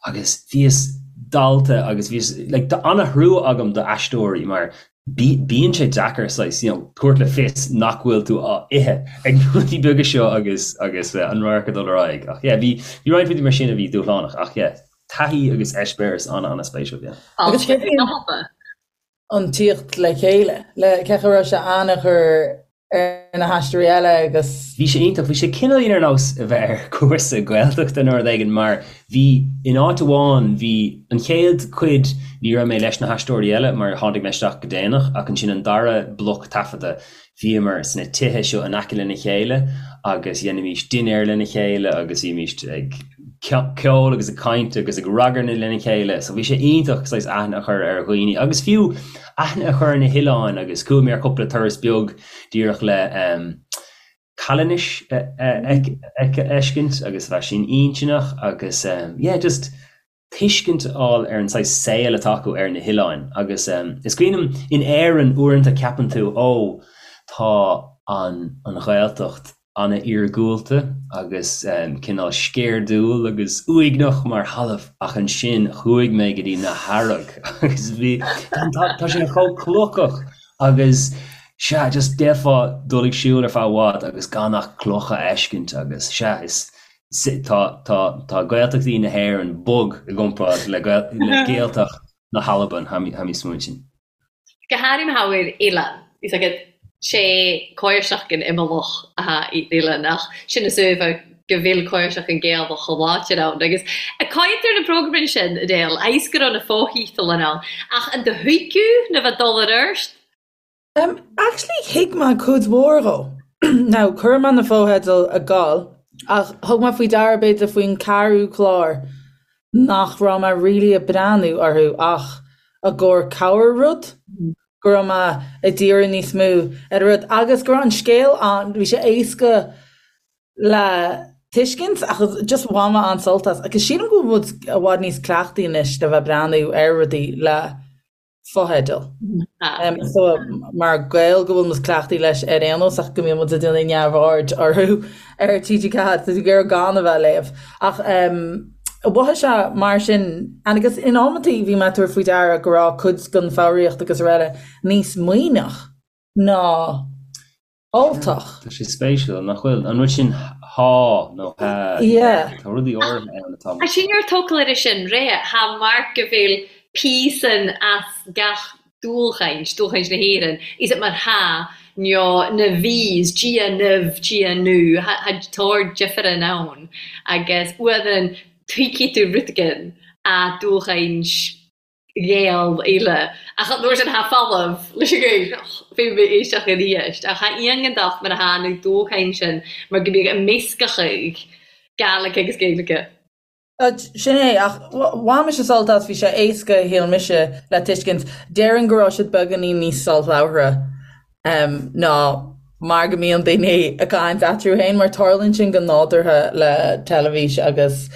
agus bhíos dallta agus bhíos, like, tá an-thrua agam do aisteoirí mar Bíonn sé deacair saghas, you know, tabhairt le fios nach bhfuil tú á ithe ag na rudaí beaga seo agus agus an radharc ag dul ar aghaidh. Ach yeah, bhí bhí roinnt rudaí mar sin a bhí dúshlánach ach yeah, taithí agus eispéireas an-an-spéisiúil, yeah. Agus cé an tíocht le chéile, le cé go raibh sé an-chur ar na haisteoirí eile agus. Bhí sé iontach. Bhí sé cineáilín ar nós a bheith ar chúrsa Gaeltachta nó rud éigin mar bhí, in áit amháin, bhí an chéad chuid ní raibh mé leis na haisteoirí eile mar tháinig mé isteach go déanach ach ansin an dara bloc taifeadta bhíomar sna tithe seo in aice lena chéile agus dheinimís dinnéar lena chéile agus bhímís ag ceol agus ag caint agus ag ragairne lena chéile so bhí sé iontach saghas aithne a chur ar dhaoine agus fiú aithne a chur ar na hoileáin agus chuaigh mé ar chúpla turas beag díreach le Calanais a fheiscint agus bheadh sin intinneach agus yeah just tuiscint a fháil ar an saghas saol atá acu ar na hoileáin agus is cuimhin liom in Éirinn uaireanta ceapann tú ó tá an an Ghaeltacht an-iargúlta agus cineál sceirdiúil agus uaigneach mar thalamh ach ansin chuaigh mé go dtí na hEarraigh agus bhí tá sé chomh clochach agus. Sea, just d'fhéadfá dul ag siúl ar feadh i bhfad agus gan ach clocha a fheiscint agus sea, is, tá, tá, tá Gaeltachtaí na hÉireann bog i gcomparáid le le Gaeltacht na hAlban, tha mi, tha mi smaointean. Go háirithe mar oileán, is agat sé cóirsach an imeallach atá i oileán ach sin is uaimhe go bhfuil cóirsach an Gaelach chomh láidir ann agus a caintear na programanna sin, Edel, ais go raibh na fóthíteal ann ach an do thuigeadh na bheith dul ar ort? Um, actually thuig mé cuid mhór dhó. Now, chuir mé na fotheidil ag gabháil, ach thug mé faoi deara b'fhéidir faoin ceathrú clár nach raibh mé really ag breathnú orthu ach i gcomhair cabhair rud, go raibh mé ag díriú níos mó ar an rud agus go raibh an scéal ann, bhí sé éasca le tuiscint ach just bhain mé an-sult as. Agus sílim go bhfuil muid i bhfad níos cleachtaí anois le bheith ag breathnú ar rudaí le fotheidil. So mar Gaeil go bhfuil muid cleachtaithe leis ar aon nós ach go mbíonn muid ag déanamh neamhaird orthu ar TG4 tá tú ag iarraidh gan a bheith ag léamh. Ach mhothaigh sé mar sin agus in amantaí bhí mé ag tabhairt faoi deara go raibh cuid den foghraíocht agus araile níos Muimhneach ná Ultach. Tá sé spéisiúil, nach bhfuil? An rud sin há nó há. Yeah. Tá rudaí áirithe ann atá. Tá sin ar tógáil air sin, ré, tha mar go bhfuil píosan as gach dúlchaint, dúlchaint na hÉireann, is it mar tha nó na bhís, Dia nimh, Dia nú, tha tá difear ann agus uairean tuigfidh tú rud éigin a dúlchaint Ghael eile. Ach an uair sin tha folamh leis an Ghaeilge. Bhí mé éisteach arís. Ach tha iongantacht mar atá na dúchain sin mar go mbíodh a meascachadh Gàidhlig agus Gaeilge. Sin é, ach bhain mise sult as, bhí sé éasca, shíl mise, le tuiscint. Déarfainn go raibh siad beagáinín níos soláthaire. ná mar go mbíonn daoine ag caint eatarthu féin, mar tarlaíonn sin go nádúrtha le teilifís agus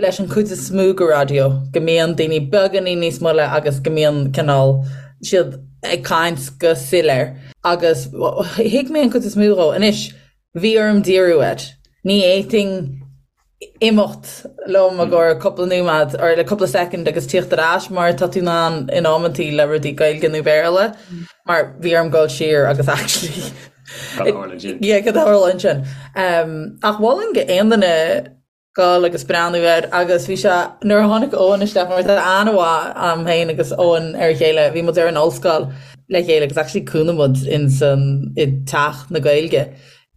leis an chuid is mó de raidió, go mbíonn daoine beagáinín níos moille agus go mbíonn cineál siad ag caint go soiléir. Agus thuig mé an chuid is mó dhó. Anois, bhí orm díriú air. Ní fhéadfainn imeacht liom i gcomhair cúpla nóiméad or le cúpla soicind agus tíocht ar ais mar tá tú in ann in amantaí le rudaí Gaeilge nó Béarla mar bhí orm dul siar agus actually Cad a tharla ansin? Yeah, cad a tharla ansin. Um, ach mholfainn go aon duine dul agus breathnú air agus bhí sé nuair a tháinig Eoin isteach mar tá aithne mhaith a'm féin agus Eoin ar a chéile bhí muid ar an ollscoil le chéile agus actually chónaigh muid in san i teach na Gaeilge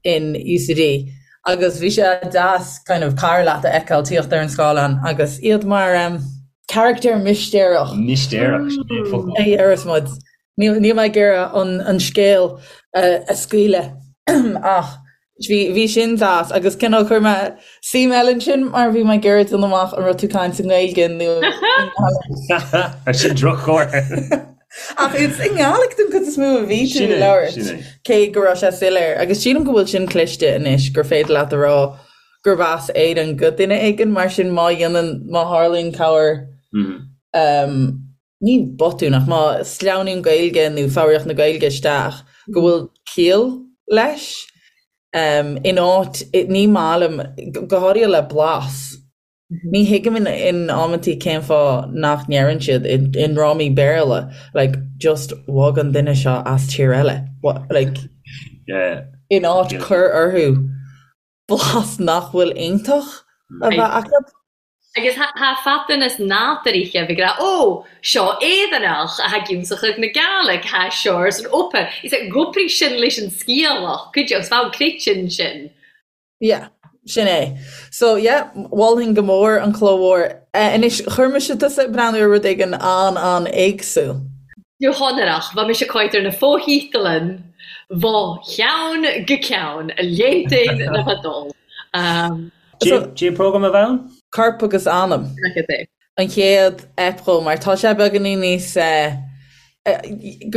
in UCD agus bhí sé deas kind of cara leat a fheiceáil tíocht ar an scáileán agus iad mar um, carachtar mistéireach. Mistéireach, sin é an focal. A deireas muid. Níl níl mé ag iarraidh an, an scéal a, a scaoileadh ach bhí, bhí sin deas agus cineál chuir mé suim eile ansin mar bhí mé ag iarraidh déanamh amach an raibh tú caint i nGaeilge nó i nGàidhlig. Ar sin droch-chomhartha. Ach is i nGàidhlig den chuid is mó a bhí tú ag labhairt, cé go raibh sé soiléir. Agus sílim go bhfuil sin cliste anois, gur féidir leat a rá gurb as Éirinn go duine éigin, mar sin má dhéanann, má tharlaíonn corr, ní botún ach má sleamhnaíonn Gaeilge nó foghraíocht na Gaeilge isteach, go bhfuil ciall leis. In áit, ní maith liom, go háirithe le blas. Ní thuigim in amantaí cén fáth nach ndeireann siad i ndrámaí Béarla like just bhog an duine seo as tír eile like in áit cur orthu blas nach bhfuil iontach a bheith acu. Agus tha fatanas nádúrtha a bheith ag rá ó, seo Éireannach a tha ag ionsachadh na Gàidhlig, tha seo san opa. Is é gobraidh sin leis an sciathlach, cuid agus bheadh creideann sin. Yeah, sin é. So yeah, mholfainn go mór an Cló Mhór. Anois, chuir mise tusa ag breathnú ar rud éigin an-an-éagsúil. Go hionrach, bha mise ag cainnt ar na fo-thítealan bho cheann go ceann, a léitein na fadó. Cad é program a bh' ann? Corp agus Anam. An chéad ep dhó, mar tá sé beagáinín níos,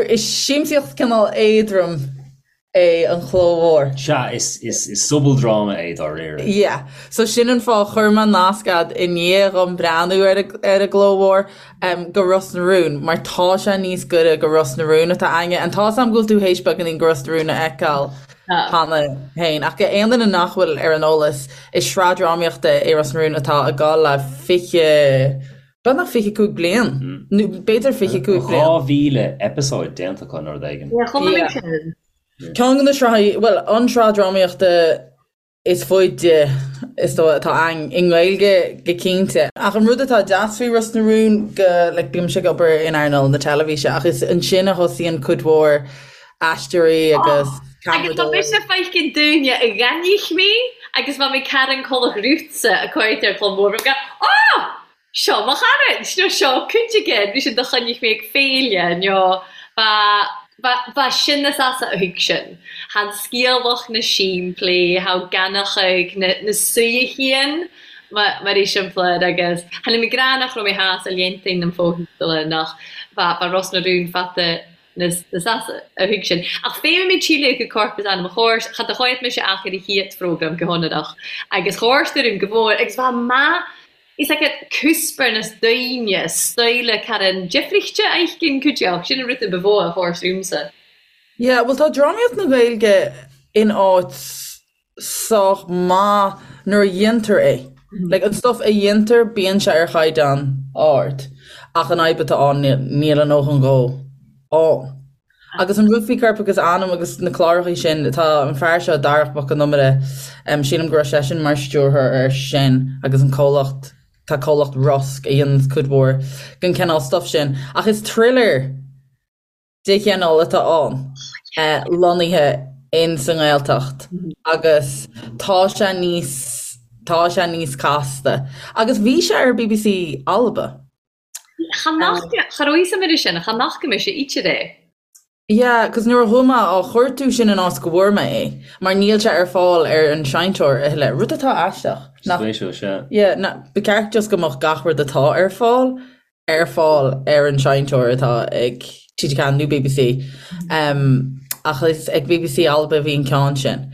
is siamsaíocht cineál éadrom é an Cló Mhór. Sea, is sobaldráma é dáiríre. Yeah. So sin an fáth, chuir mé nasc a'd i ndiaidh dhom breathnú ar ar an gCló Mhór go Ros na Rún, mar tá sé níos gaire go Ros na Rún atá a'inne. And tá's a'm go bhfuil tú théis beagáinín go Ros na Rún a fheiceáil cheana féin, ach go aon duine nach bhfuil ar an eolas, is sraith drámaíochta é Ros na Rún atá ag gabháil le 20. Beagnach 25 bliain, nó b'fhéidir 25 bliain. 2,000 eipeasóid déanta acu nó rud éigin. Yeah, chonaic mé sin. Ceann de na sraithí, bhuel, an tsraith drámaíochta is faide is dóigh atá ann i nGaeilge go cinnte. Ach an rud atá deas faoi Ros na Rún go, like, bímse ag obair in earnáil na teilifíse ach is ansin a thosaíonn cuid mhór aisteoirí agus Agus tá mise feicinn dúine a ghainich mé agus bha mi Karen Collach Rútsa a cuaird ar Cló Mór go ah! Seo mo charaid! Nó seo cuid again! Bhí sin do choinnich mé ag féile nó ba ba ba sin na sasa a thuig sin. Tha an sgialach na símplí, tha ganachaidh na na suidheachain mar mar eiseamplair agus tha mi grá nach raibh mé theas a léantain nam fóthíola nach ba ba Ros na Rún fata na na sasa a thuig sin. Ach féadfaidh mé tsíle go corp is anam a chóir, cha do chóid mise ach ar a chiat phrógram go hionadach agus chóir stoirm go mhór agus bha maith is aige cuspair nas daoine stoile caran deifrichte aicinn cuideach sin an rud a ba mhó a chóir súmsa. Yeah, bhuel tá drámaíocht na Gaeilge in áit sách maith nuair a dhéantar é. Like, an stuff a dhéantar, bíonn sé ar chaighdeán ard, ach an fhadhb atá ann, níl a ndóthain dhó ann. Agus an rud faoi Corp agus Anam agus na clárachaí sin, tá an fear seo, Darach Mac Con Iomaire, sílim go raibh seisean mar stiúrthóir air sin agus an comhlacht, tá comhlacht Rosg a dhéananns cuid mhór den chineál stuff sin. Ach is thriller de chineál atá ann, lonnaithe in sa nGaeltacht agus tá sé níos, tá sé níos casta. Agus bhí sé ar bbc Alba. Cha nach, cha raibh fhios a'm air sin, cha fhaca mise íte é. Yeah, 'cause nuair a chuaigh mé á chuartú sin an áit go bhfuair mé é, mar níl sé ar fáil ar an seinnteoir a thuilleadh, rud atá aisteach. Nach, Spéisiúil, sea. Yeah, na, ba cheart just go mbeadh gach rud atá ar fáil ar fáil ar an seinnteoir atá ag TG4 nó bbc. Um, ach is ag bbc Alba a bhí an ceann sin.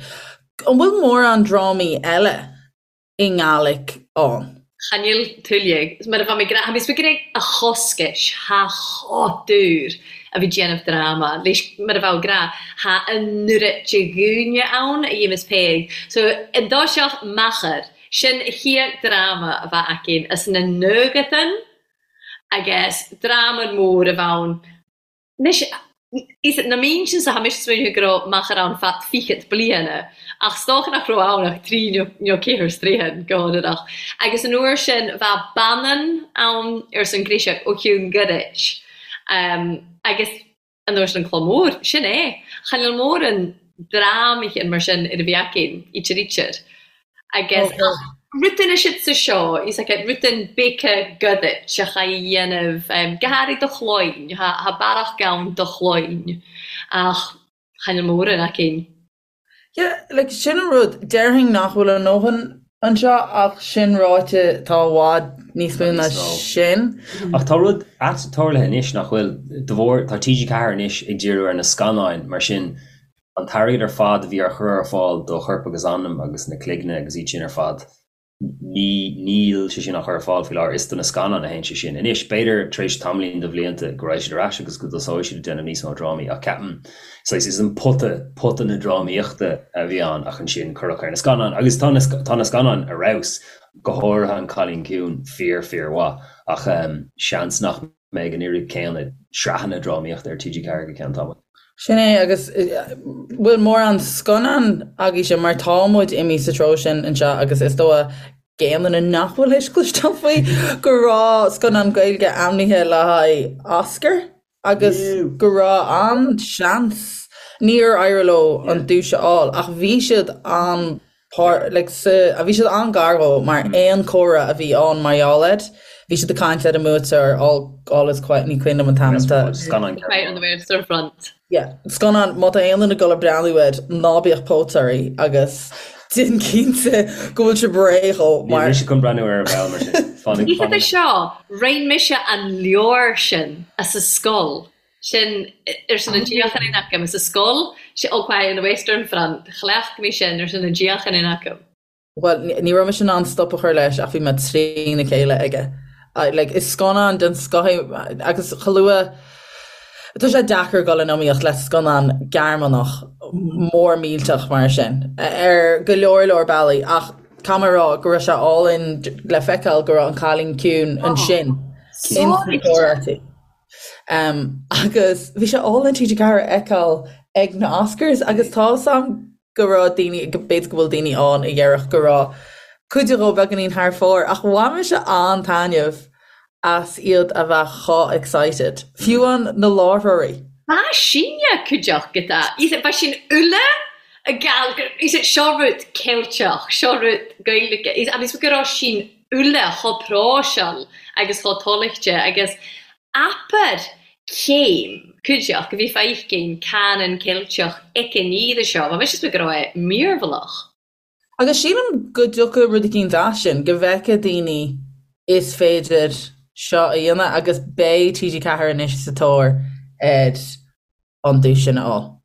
An bhfuil mórán drámaí eile i nGàidhlig ann? Cha níl tuilleadh. Mar a bheadh mé ag rá, tha mi ag a choscais, tha chotúr a bhí déanamh dráma, leis mar a bheadh ag rá, tha an oiread de dhúine ann a dhéanas Peig. So, an dtoiseach Meachar, sin a chéad dráma a bheadh againn as na nuagatan agus dráma mór a bheadh ann. Anois, is na mín sin sa tha mise smaoineamh go raibh Meachar ann feadh fichead bliana, ach 's dócha nach raibh ann ach trí nó ceathair stroighin, go hionadach. Agus an uair sin bheadh Bannan ann ars an Ghríseach ó Cheann Goirid. Agus an uair sin an Cló Mór, sin é. Chan eil mòran dràmaithe mar sin air a bhith againn, ítear ítear. Agus ach rudan is sa seo, is like rudan beaga Gàidhlig a chaidh a dhéanamh, go hàraidh do chloinn, tha bearach gann do chloinn, ach chan eil mòran againn. Yeah, like sin an rud, déarfainn nach bhfuil a ndóthain anseo ach sin ráite tá i bhfad níos mó ná sin. Ach tá rud ait tarlaithe anois nach bhfuil, de bharr, tá TG4 anois ag díriú ar na scannáin mar sin an t-airgead ar fad a bhí á chur ar fáil do Chorp agus Anam agus na Cloigne agus iad sin ar fad, Ní, níl sé sin á chur ar fáil faoi láthair, is do na scannáin a théann sé sin. Anois, b'fhéidir tar éis tamaillín de bhlianta go raghaidh siad ar ais agus go dtosóidh siad ag déanamh níos mó drámaí ach ceapaim, saghas, is an pota, pota na drámaíochta a bhí ann ach ansin cuireadh ar na scannáin agus tá na, tá na scannáin ar fheabhas, go háirithe An Cailín Ciúin, fíor, fíor mhaith ach seans nach mbeidh an oiread céanna sraitheanna drámaíochta ar TG4 go ceann tamaill. Sin é, agus bhfuil mórán scannán agaibhse mar tá muid imithe sa treo sin anseo agus is dóigh d'aon duine nach bhfuil théis cloisteáil faoi go raibh scannán Gaeilge ainmnithe le haghaidh Oscar agus go raibh an-seans, níor éirigh leo an duais a fháil ach bhí siad an like sa, bhí siad an-ghar dhó mar aon comhrá a bhí ann mar gheall air, bhí siad ag caint ar an mbuaiteoir All, All is Quiet, ní cuimhin liom an t-ainm atá. Scannán Quiet on the Western Front. Yeah, scannán, má tá aon duine ag dul ag breathnú air, ná bíodh póit oraibh agus déan cinnte go bhfuil sibh réidh dhó mar. Níl mise chun breathnú air ar ball mar sin. Fanaigh, fanaigh. Oíche seo, roinn mise an leabhar sin as an scoil. Sin ar son an díocháin in agam. Sa scoil, All Quiet on the Western Front, chleacht mé sin ar son an díocháin in agam. Bhuel, ní raibh mise in ann stop a chur leis ach bhí mé trína chéile aige. Like, is scannán den scoth é agus chomh luath, tá sé deacair dul in iomaíocht le scannán Gearmánach mór millteach mar sin ar go leor leor bealaí ach caithfidh mé a rá go raibh sé álainn le feiceáil go raibh An Cailín Ciúin ansin. Cinnte. Agus bhí sé álainn TG4 a fheiceáil ag na Oscars agus tá 'fhios a'm go raibh daoine, b'fhéidir go bhfuil daoine ann a dhéarfadh go raibh cuid dhó beagáinín thar fóir ach bhain mise an-taitneamh as iad a bheith chomh excited, fiú amháin na láithreoirí. Ba sinne cuideachta, ba sin uile seo rud Ceilteach, seo rud Gaeilge, agus go raibh sin uile chomh próiseáil agus chomh toilchte agus abair céim cuideachta bhí feicim canann Ceilteach aici ní seo, bha mise go raibh é mírbhealach. Agus sílim go dtiocfaidh rud eicínt as sin, go bhfeicfidh daoine is féidir seo a dhéanamh agus beidh TG4 anois sa tóir ar an duais sin a fháil.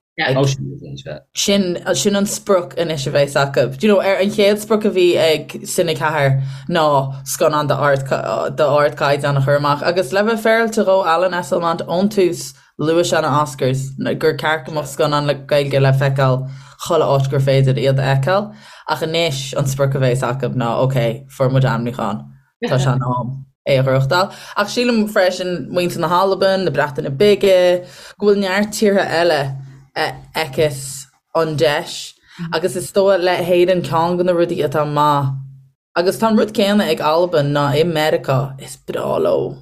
Sin sin an sprioc anois a bheas acu. Do you know, ar an chéad sprioc a bhí ag Cine 4 ná scannán d'ardchaighdeán a chur amach agus le bheith féaráilte dhó Alan Esslemont ón tús luaigh sé na Oscars gur ceart go mbeadh scannáin le Gaeilge le feiceáil chuile áit gur féidir iad a fheiceáil ach anois an sprioc a bheas acu ná ok, fuair muid ainmniúchán. Tá sé in am é a ghnóthachtáil. Ach sílim freisin, muintir na hAlban, na Breataine Bige, go bhfuil neart tíortha eile a fheiceas an deis. Agus is dóigh le hÉirinn ceann de na rudaí atá maith, agus tá an rud céanna ag Albain ná i Meiriceá, is breá leo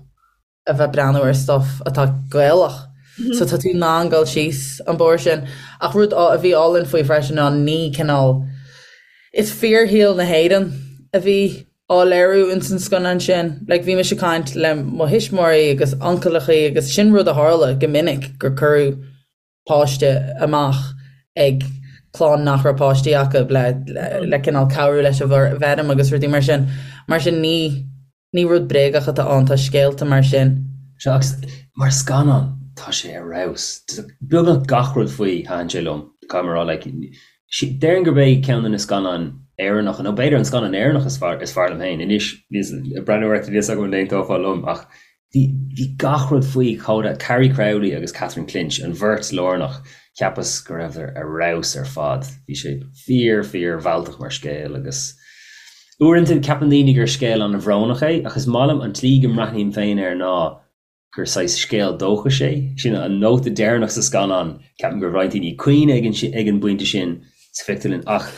a bheith breathnú ar stuff atá Gaelach. So tá tú in ann dul síos an bóthar sin. Ach rud a bhí álainn faoi freisin ná ní cineál, is fíorshaol na hÉireann a bhí á léiriú ins an scannán sin. Like bhí mise ag caint le mo thuismitheoirí agus uncaileachaí agus sin rud a tharla go minic gur cuireadh páiste amach ag clann nach raibh páistí acu le le cineál cabhrú leis an bhfeirm agus rudaí mar sin. Mar sin ní ní rud bréagach atá ann, tá scéalta mar sin. Sea, agus mar scannán tá sé ar fheabhas. Beagnach gach rud faoi, thaitin sé liom, caithfidh mé a rá. Like, déarfainn gurb é ceann de na scannáin Éireannacha, nó b'fhéidir an scannán Éireannach is fearr is fearr liom féin. Anois, ag breathnú ort, níl a fhios agam an aontófá liom, ach Bhí, bhí gach rud faoi chomh, Carrie Crowley agus Catherine Clinch, an bheirt lárnach, cheapas go rabhadar ar fheabhas ar fad. Bhí sé fíor, fíor mhealltach mar scéal agus uaireanta ceapann daoine gur scéal an-bhrónach é ach is maith liom an tslí go mbreathnaím féin air ná gur saghas scéal dóchais é. Sin an nóta deireanach sa scannán, ceapaim go raibh roinnt daoine ag caoineadh ag an, ag an bpointe sin sa phictiúrlann ach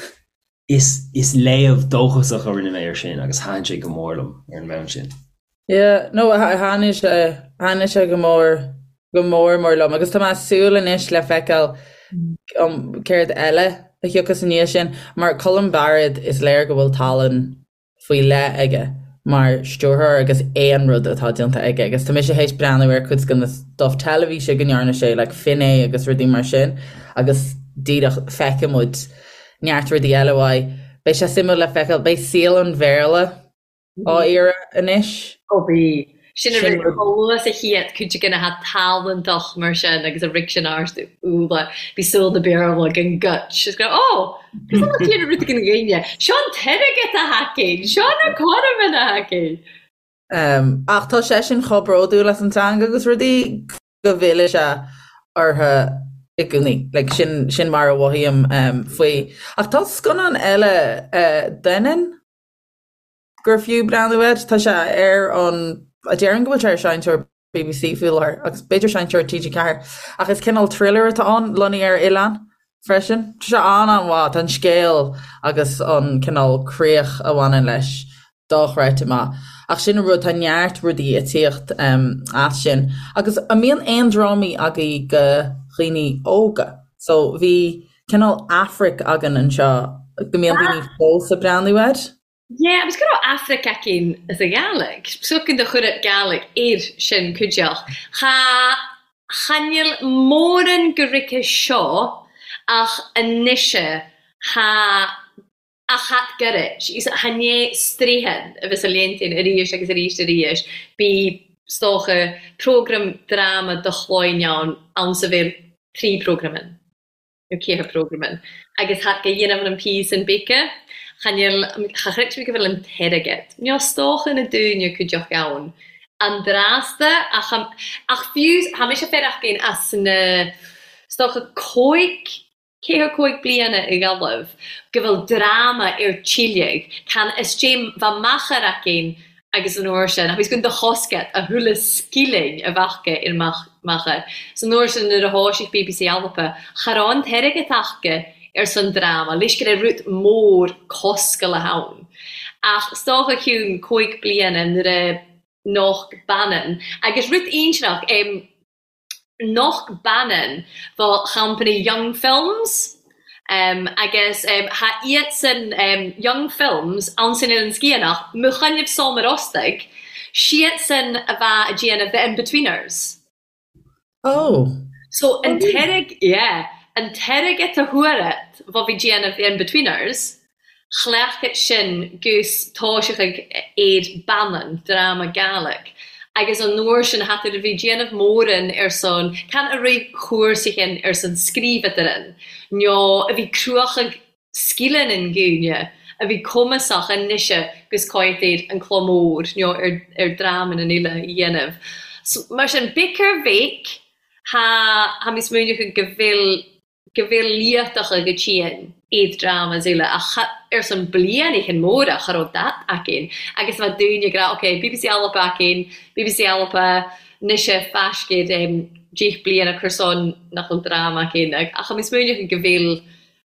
is, is léamh dóchasach a rinne mé air sin agus thaitin sé go mór liom ar an mbonn sin. Yeah, no, thaitnigh sé, thaitnigh sé go mór, go mór mór liom agus tá mé ag súil anois le feiceáil um, céard eile a thiocfas i ndiaidh sin, mar Colm Bairéad is léir go bhfuil tallann faoi leith aige mar stiúrthóir agus aon rud atá déanta aige agus tá mise théis breathnú ar cuid de na stuff teilifíse go ndearna sé like Finné agus rudaí mar sin agus díreach feicfidh muid neart rudaí eile uaidh. Beidh sé suimiúil le feiceáil, beidh saol an Bhéarla á iarraidh anois. Ó bhí. Sin a rud chomh luath is a chéad cuid de na ha tallanntach mar sin agus a rig sin ort úlla bhí súil na Béarla gan guts is go raibh ó cos an chéad rud ag an ghaine seo an t-airgead a thacaíonn seo na cothroime a thacaíonn. Ach tá seisean chomh bródúil as an teanga agus rudaí go bhfilleann sé orthu i gcónaí. Like sin sin mar a mhothaím faoi. Ach tá scannán eile Doineann? gur fiú breathnú air. Tá sé ar an, déarfainn go bhfuil sé ar seinnteoir BBC faoi láthair agus b'fhéidir seinnteoir TG4 ach is cineál thriller atá ann, lonnaithe ar oileán freisin. Tá sé an-an-mhaith, tá an scéal agus an cineál críoch a bhaineann leis dochreidte maith. Ach sin an rud, tá neart rudaí ag tíocht as sin. Agus an mbíonn aon drámaí agaibh go dhaoine óga? So bhí cineál Aifric againn anseo go mbíonn daoine fós ag breathnú air. Yeah, agus go raibh Aifric againn as a Gàidhlig. Socan do chuireadh Gàidhlig air sin cuideach. Cha, cha níl móran go rice seo ach anois tha, ach that gairid. Tha né straidhn a bheas a léantain arís agus arís arís. Bí, 's dócha, prógram dráma do chloinn ann, ann sa bhéal trí prógram ann. nó ceathair prógram agus tha go dhéanamh an píosa an bíce cha níl cha chreid mé go bhfuil an t-airgead nó 's dócha na dúine cuideach ann an drasta ach ach fiú tha mise féar as na 's dócha cóig ceathair cóig bliana i Gaillimh go bhfuil dráma ar tíligh can is dé bha machair againn. Agus an uair sin, agus gun do chosgat a thuilleadh scilling a bheadh aige ar macha. So an uair sin nuair a thoisigh BBC Alba, cha raibh an t-airgead aca ar son dráma, leis go raibh rud mór coscalach ann. Ach 's dócha cionn cúig bliana nuair a noch baineann, agus rud ínseanach, em, noch baineann fá champany Young Films agus tha iadsan Young Films ann san Eilean Sgitheanach, mo choinnibh som ar ostaig, siadsan a bha a' déanamh The Inbetweeners. Oh. So an t-airg, yeah, an t-airgead a fuarat bha bhí déanamh The Inbetweeners, Chleacht sin gus toiseachadh air Bannan, dráma Gàidhlig, agus an uair sin tha tar a bhí déanamh móran ar son can a raibh chúrsaidhean ar son scríobhadaran nó a bhí cruachadh sgileannan dhaoine a bhí cumasach anoise gus cáit ar an cló mór nó ar ar drámannan eile a dhéanamh. So, mar sin, beic ar bheic, tha tha mi smaoineachadh go bhfuil go bhfuil liatacha go tinn iad dramas eile ach ar son blianaichan móra cha raibh dat againn agus bheadh daoine ag rá ok BBC Alba againn, BBC Alba 'nois faiscéid deich bliana cur son nach bhfuil dráma againn ach tha mi smaoineachadh go bhfuil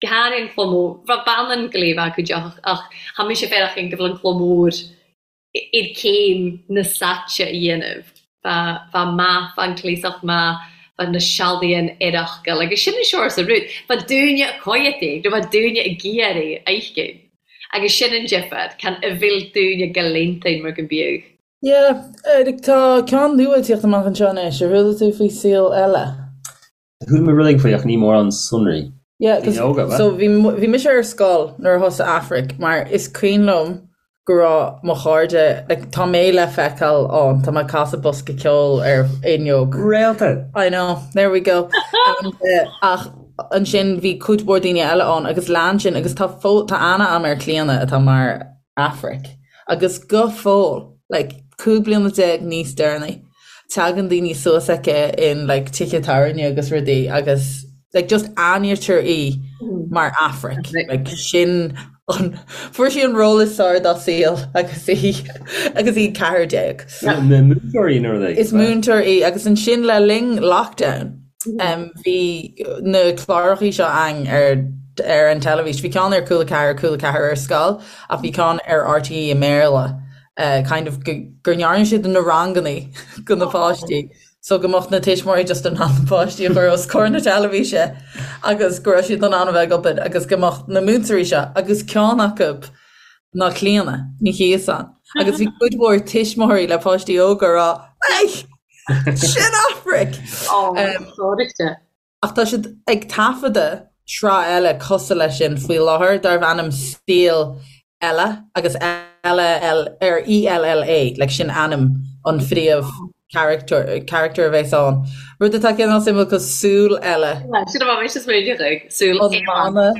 go háirithe an cló mór, bheadh Bannan go léamh acu deoch ach tha mise féachaint go bhfuil an cló mór ar céim na saite a dhéanamh. Bha maith, bha an cleasach maith, bha na sealadaighean ar fhocal, agus sin an seoras a rud. Bha dúine a coimhead nó bha dúine ag iarraidh a fheiscint. Agus sin an difear, can a bhfuil dúine go léantain mar go mbíodh. Yeah, tá ceann nua ag tíocht amach anseo anois, ar chuala tú faoi Saol Ella? Chuala mé rud éigin faoi ach ní mórán sonraí. Yeah, 'cause Daoine óga, ab ea? so bhí bhí mise ar scoil nuair a thosaigh Aifric mar is cuimhin liom go raibh mo chairde like tá mé le feiceáil ann, tá mé ag casadh bosca ceoil ar fhuinneog. Réalta! I know, there we go. And eh, ach ansin bhí cuid mhór daoine eile ann agus lean sin agus tá fó tá aithne agam ar Clíona atá mar Aifric agus go fóill like 15 bliana níos deireanaí tagann daoine suas aici in like tithe tábhairne agus rudaí agus like just aithnítear í mar Aifric like sin an fuair sí an ról is fearr dá saol agus í agus í 14. Múinteoir í nó rud Is múinteoir í agus ansin le linn lockdown bhí na clárachaí seo ann ar ar an teilifís. Bhí ceann ar Cúla 4, Cúla 4 ar scoil ach bhí ceann ar RTÉ i mBéarla kind of go ndearna siad na rangannaí go na páistí so go mbeadh na tuismitheoirí just in ann na páistí a chur os comhair na teilifíse agus go raibh siad in ann a bheith ag obair agus go mbeadh na múinteoirí seo agus ceann acu ná Clíona Ní Chíosáin agus bhí cuid mhór tuismitheoirí le páistí óga ag rá Ei! Sin Aifric! Sóireachta. Ach tá siad ag taifeadadh sraith eile cosúil leis sin faoi láthair darbh ainm Saol Ella agus Ella ar ELLA, like sin ainm an phríomh character character a bheas ann. Rud atá cineál suimiúil cos súil eile. Sin a bheadh mise smaoineach ag, súil An mana.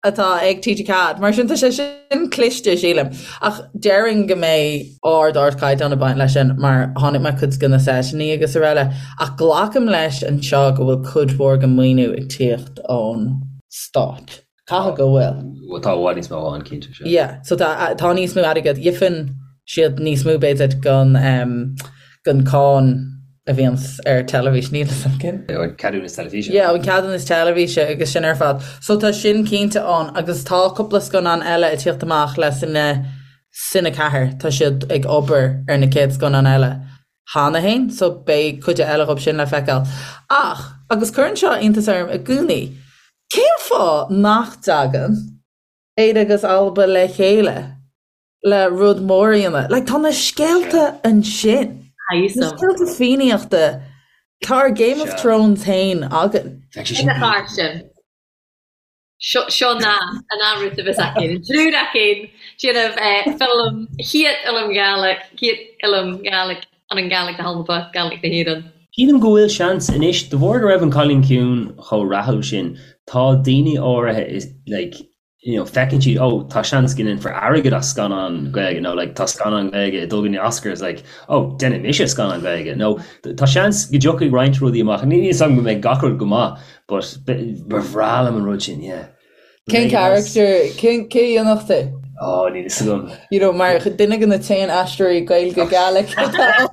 atá ag TG4. Mar sin tá sé sin cliste, sílim. Ach déarfainn go mbeidh ard ardchaighdeán ag baint leis sin mar chonaic mé cuid de na seiteanna agus araile. Ach glacaim leis anseo go bhfuil cuid mhór den maoiniú ag tíocht ón stát. Caithfidh go bhfuil. Bhuel tá i bhfad níos mó ann, cinnte, sea. Yeah, so tá tá níos mó airgead. Gheibheann siad níos mó b'fhéidir den den cáin a bhíonns ar teilifís, níl fhios agam. An ceadúnas teilifíse. Yeah, an ceadúnas teilifíse agus sin ar fad. So tá sin cinnte ann agus tá cúpla scannán eile ag tíocht amach le Cine, Cine 4, tá siad ag obair ar na céad scannán eile cheana féin, so beidh cuid eile dhób sin le feiceáil. Ach, agus cuireann seo iontas orm i gcónaí, cén fáth nach dtagann Éire agus Alba le chéile? le rud mór a dhéanamh. Like, tá na scéalta ansin. Na scéalta Fiannaíochta. Tá ár Game of Thrones féin againn. Ina chár sin. Seo ná an rud a bheas againn. An triúr againn déanamh ffilm, chéad fhilm Gàidhlig, chéad fhilm Gàidhlig an an Gàidhlig na hAlba, Gàidhlig na hÉireann. Sílim go bhfuil seans anois, de bharr go raibh An Cailín Ciúin chomh rathúil sin, tá daoine áirithe like, you know, feiceann siad, oh, tá seans go ndéanfar airgead as scannán Gaeilge nó like, tá scannán Gaeilge ag dul go dtí na Oscars, like, oh, déanfaidh mise scannán Gaeilge nó tá seans go dtiocfaidh roinnt rudaí amach. Níl fhios agam go mbeidh gach rud go maith, but ba bhreá liom an rud sin, yeah. Cén character, cén, cé a dhéanfadh tú? Ó, níl fhios agam. You know, mar duine de na t-aon aisteoirí Gaeilge Gaelic atá ann.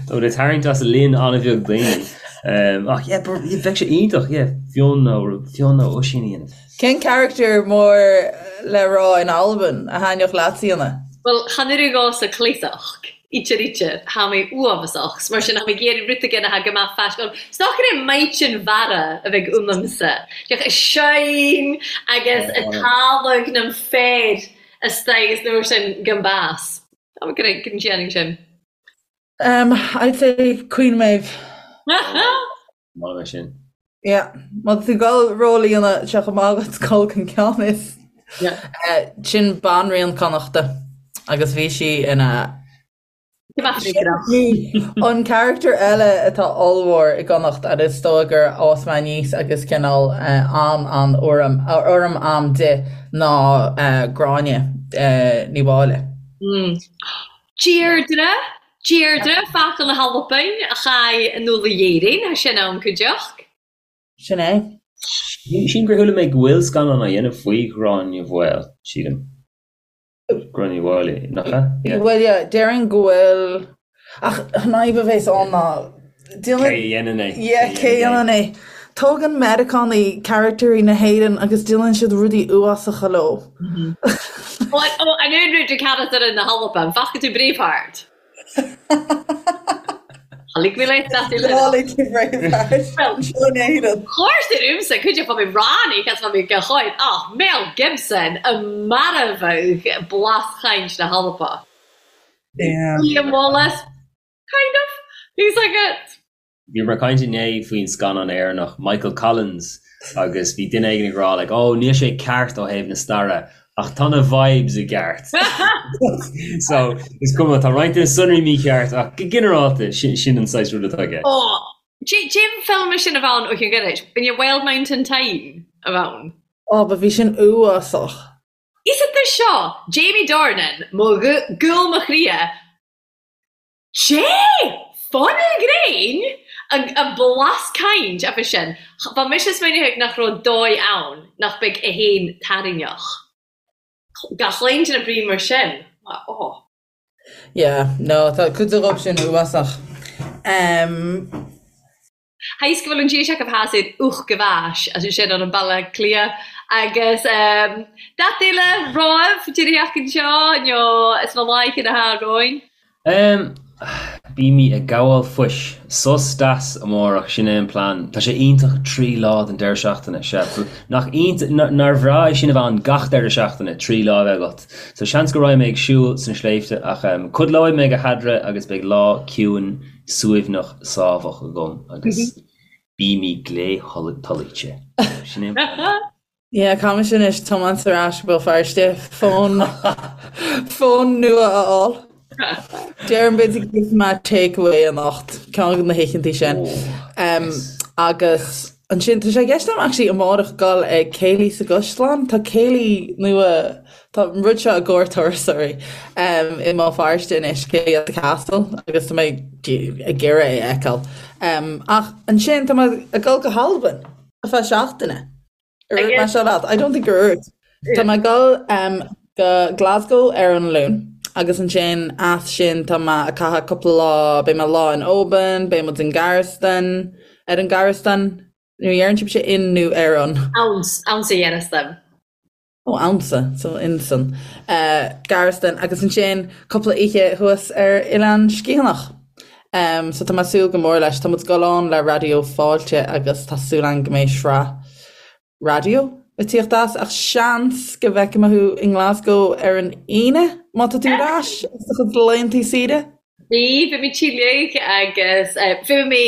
Tá muid ag tarraingt as líon an-bheag daoine. Ach yeah, bheadh sé iontach, yeah, Fionn nó Fionn nó Oisín a dhéanamh. Cén character mór le rá in Albain a thaitneodh leatsa a dhéanamh? Bhuel, chan oireadh dhomhsa cleasach, ítear ítear, tha mi uabhasach, 's mar sin tha mi ag iarraidh rud éigin atá go maith faisc-. 'S nach raibh Maighdean Mhara a bheidh ionamsa, ach a shine agus a talamh nam féar astoigh is nuair sin gan bás. Tá mé go ndéanfainn sin. Um, I'd say Queen Maeve. Maith é sin. Yeah. Má tá tú ag dul ról a dhéanamh sé chomh maith agat dul chun ceann is. Yeah. Eh, sin banríon Connachta agus bhí sí ina An character eile atá ollmhór i gConnacht agus is dóigh gur fhás mé aníos agus cineál eh, an an urraim urraim a'm di ná eh, Gráinne eh, Ní Mháille. Mm. Deirdre, Deirdre, Focal na hAlban, a chaith an Uladh Éirinn, thá sin ann cuideachd. Sin é. Sílim gur chuala mé go bhfuil scannán á dhéanamh faoi Ghráinne Mhaol, sílim. Gráinne Ní Mháille, nach ea? Yeah. Bhuel, yeah, déarfainn go bhfuil, ach an fhadhb a bhéas ann ná, Cé a dhéanann é? Yeah, cé a dhéanann é? Tógann Meiriceánaigh caractairí na hÉireann agus déanann siad rudaí uafásacha leo. Ó, an aon rud de charachtar na hAlban, faca tú Braveheart? Tháinig mé leis that uile. Tháinig tú Braveheart. Seo in Éirinn. Chuirtear uaimse cuid de fá mé ráinig as fá mé go háit ach Mel Gibson a marbhadh blas-chaint na hAlban. Yeah. William Wallace. Kind of. He's like a. Bhíomar ag caint inné faoin scannán Éireannach Michael Collins agus bhí duine éigin ag rá like oh níl sé ceart ó thaobh na staire ach tá na vibes i gceart. So is cuma tá roinnt de na sonraí mícheart ach go ginearálta sin sin an saghas rud atá i gceist. Oh, cén film sin a bhean ó Chill Gheiris? B'in é Wild Mountain Thyme a bhean. Oh, but bhí sin uafásach. Is it seo, Jamie Dornan, mo ghoul mo chroidhe, Sé! Fán ghréin! An blas caint a bhí sin. Bha mise smaoineachadh nach robh dòigh ann nach beag e fhèin tarraingneach. Gach aon duine brí mar sin. Oh. Yeah, no, tá cuid dhóibh sin uafásach. Um. Tha fhios go bhfuil an dís acu theas ar ucht go bhais as sin ar an Baile Átha Cliath agus dat eile roimh deireadh anseo nó is mo láith ina tha romhainn. Bímid ag gabháil fuis. Sos deas amárach, sin é an plean. Tá sé iontach 3 lá den deireadh seachtaine, sea. Nach iontach, nár bhreá é sin a bheith ann gach deireadh seachtaine, 3 lá a bheith agat. So seans go raghaidh mé ag siúl sna sléibhte ach codlóidh mé go headra agus beidh lá ciúin suaimhneach sámhach agam agus bímid glé tolaíte. Sin é an plean. Yeah, caithfidh mise anois tiomáint ar ais go Béal Feirste fón fón nua a fháil. Déarfainn b'fhéidir go gheobhaidh mé take away anocht, ceann de na hoícheantaí sin. Um, agus ansin tá sé i gceist agam actually amárach dul ag céilí sa gCaisleán. Tá céilí nua Tá an rud seo i gcomhair turasóirí i mBéal Feirste anois, Céilí at the Castle, agus tá mé ag iarraidh é a fheiceáil. Ach ansin tá mé ag dul go hAlbain ar feadh seachtaine. Ar dhúirt mé seo leat? I don't think gur dhúirt. Tá mé ag dul go Glasgow ar an Luan agus ansin as sin tá mé ag caitheamh cúpla lá, beidh mé lá in Oban, beidh muid in Gearasdan, ar an Gearasdan, nó dheireann sibhse in nó ar an? Ann, ann sa Ghearasdan. Ó ansa, so insan Gearasdan agus ansin cúpla oíche thuas ar Oileán Sgitheanach. So tá mé ag súil go mór leis. Tá muid ag dul ann le Raidió Fáilte agus tá súil agam go mbeidh sraith raidió ag tíocht as ach seans go bhfeicfidh mé thú i nGlasgow ar an Aoine má tá tú ar ais as do chuid laethanta saoire. Bhí, bhí mé tíleach agus bhí mé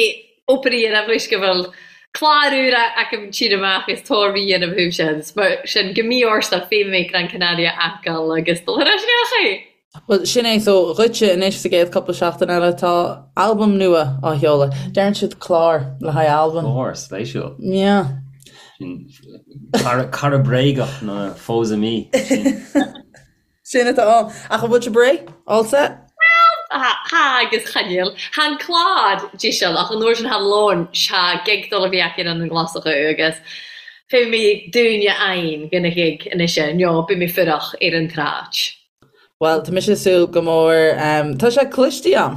obair a dhéanamh leis go bhfuil clár úr agam tinn amach is tóir a dhéanamh thú sin, mar sin go mí-ársa bhí mé Gran Canaria a fhágáil agus dul ar ais isteach é. Bhuel, sin é, so dhuitse anois sa gcéad cúpla seachtain eile tá albam nua á sheoladh. Deireann siad clár le haghaidh albam. Clár, spéisiúil. Yeah. Sin cara, cara bréagach nó faux ami. Sin. Sin atá ann. Ach an bhfuil sibh réidh? All set? Bhuel, tha agus chan eil. Tha an clàr deiseal ach an uair sin tha lon tha gig dol a bhith aca ann an Glaschu agus. Fé mé dúine ainn go na ghig anois nó beidh mé fuireach ar an tsráid. Bhuel, tá mise ag súil go mór, tá sé cloiste a'm,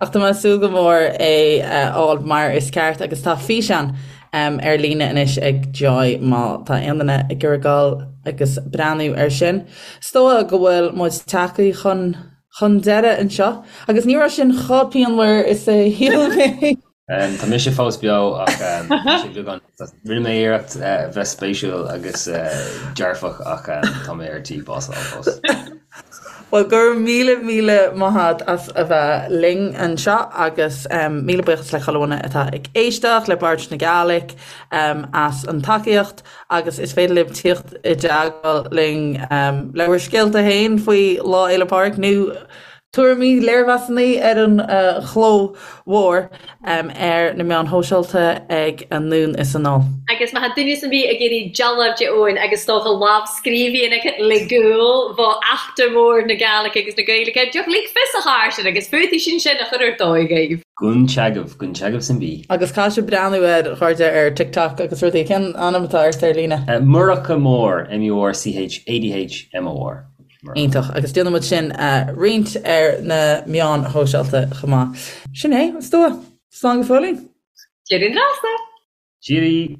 ach tá mé ag súil go mór é a fháil mar is ceart agus tá físeán ar líne anois ag Joy má tá aon duine ag iarraidh dul agus breathnú air sin. Is dóigh go bhfuil muid tagtha chun chun deireadh anseo agus ní raibh sin chomh pianmhar is a shíl mé. Tá mise fós beo ach tá sé beagán, rinne mé iarracht bheith spéisiúil agus dearfach ach tá mé ar tí bás a fháil fós. Bhuel, go raibh míle míle maith a't as a bheith linn anseo agus míle buíochas le chuile dhuine atá ag éisteacht, le Bòrd na Gàidhlig as an tacaíocht agus is féidir libh tíocht i dteagmháil linn le bhur scéalta féin faoi Lá Fhéile Pádraig nó Tuairimí, léirmheasanna ar an chló mhór ar na meáin shóisialta ag Anonn is Anall. Agus má tá duine 's an bith ag iarraidh dealbh de Eoin agus is dócha lámhscríbhinn aige le gúil bho eachtra mór na Gàidhlig agus na Gaeilge, deoch lig fios a Chàrsainn agus fútaí sin sin a chur ar dóigh dhaoibh. Gun teagamh, gun teagamh san bí. Agus caithfidh sibh breathnú ar chairde ar TikTok agus rudaí. Cén ainm atá ort ar líne? Murchadh Mór, M-U-R-C-H-A-D-H-M-O-R. Iontach, agus déanfaidh muid sin a roinnt ar na meáin shóisialta chomh maith. Sin é, is dóigh. Slán go fóillín! Deireadh an rása! Cheerio!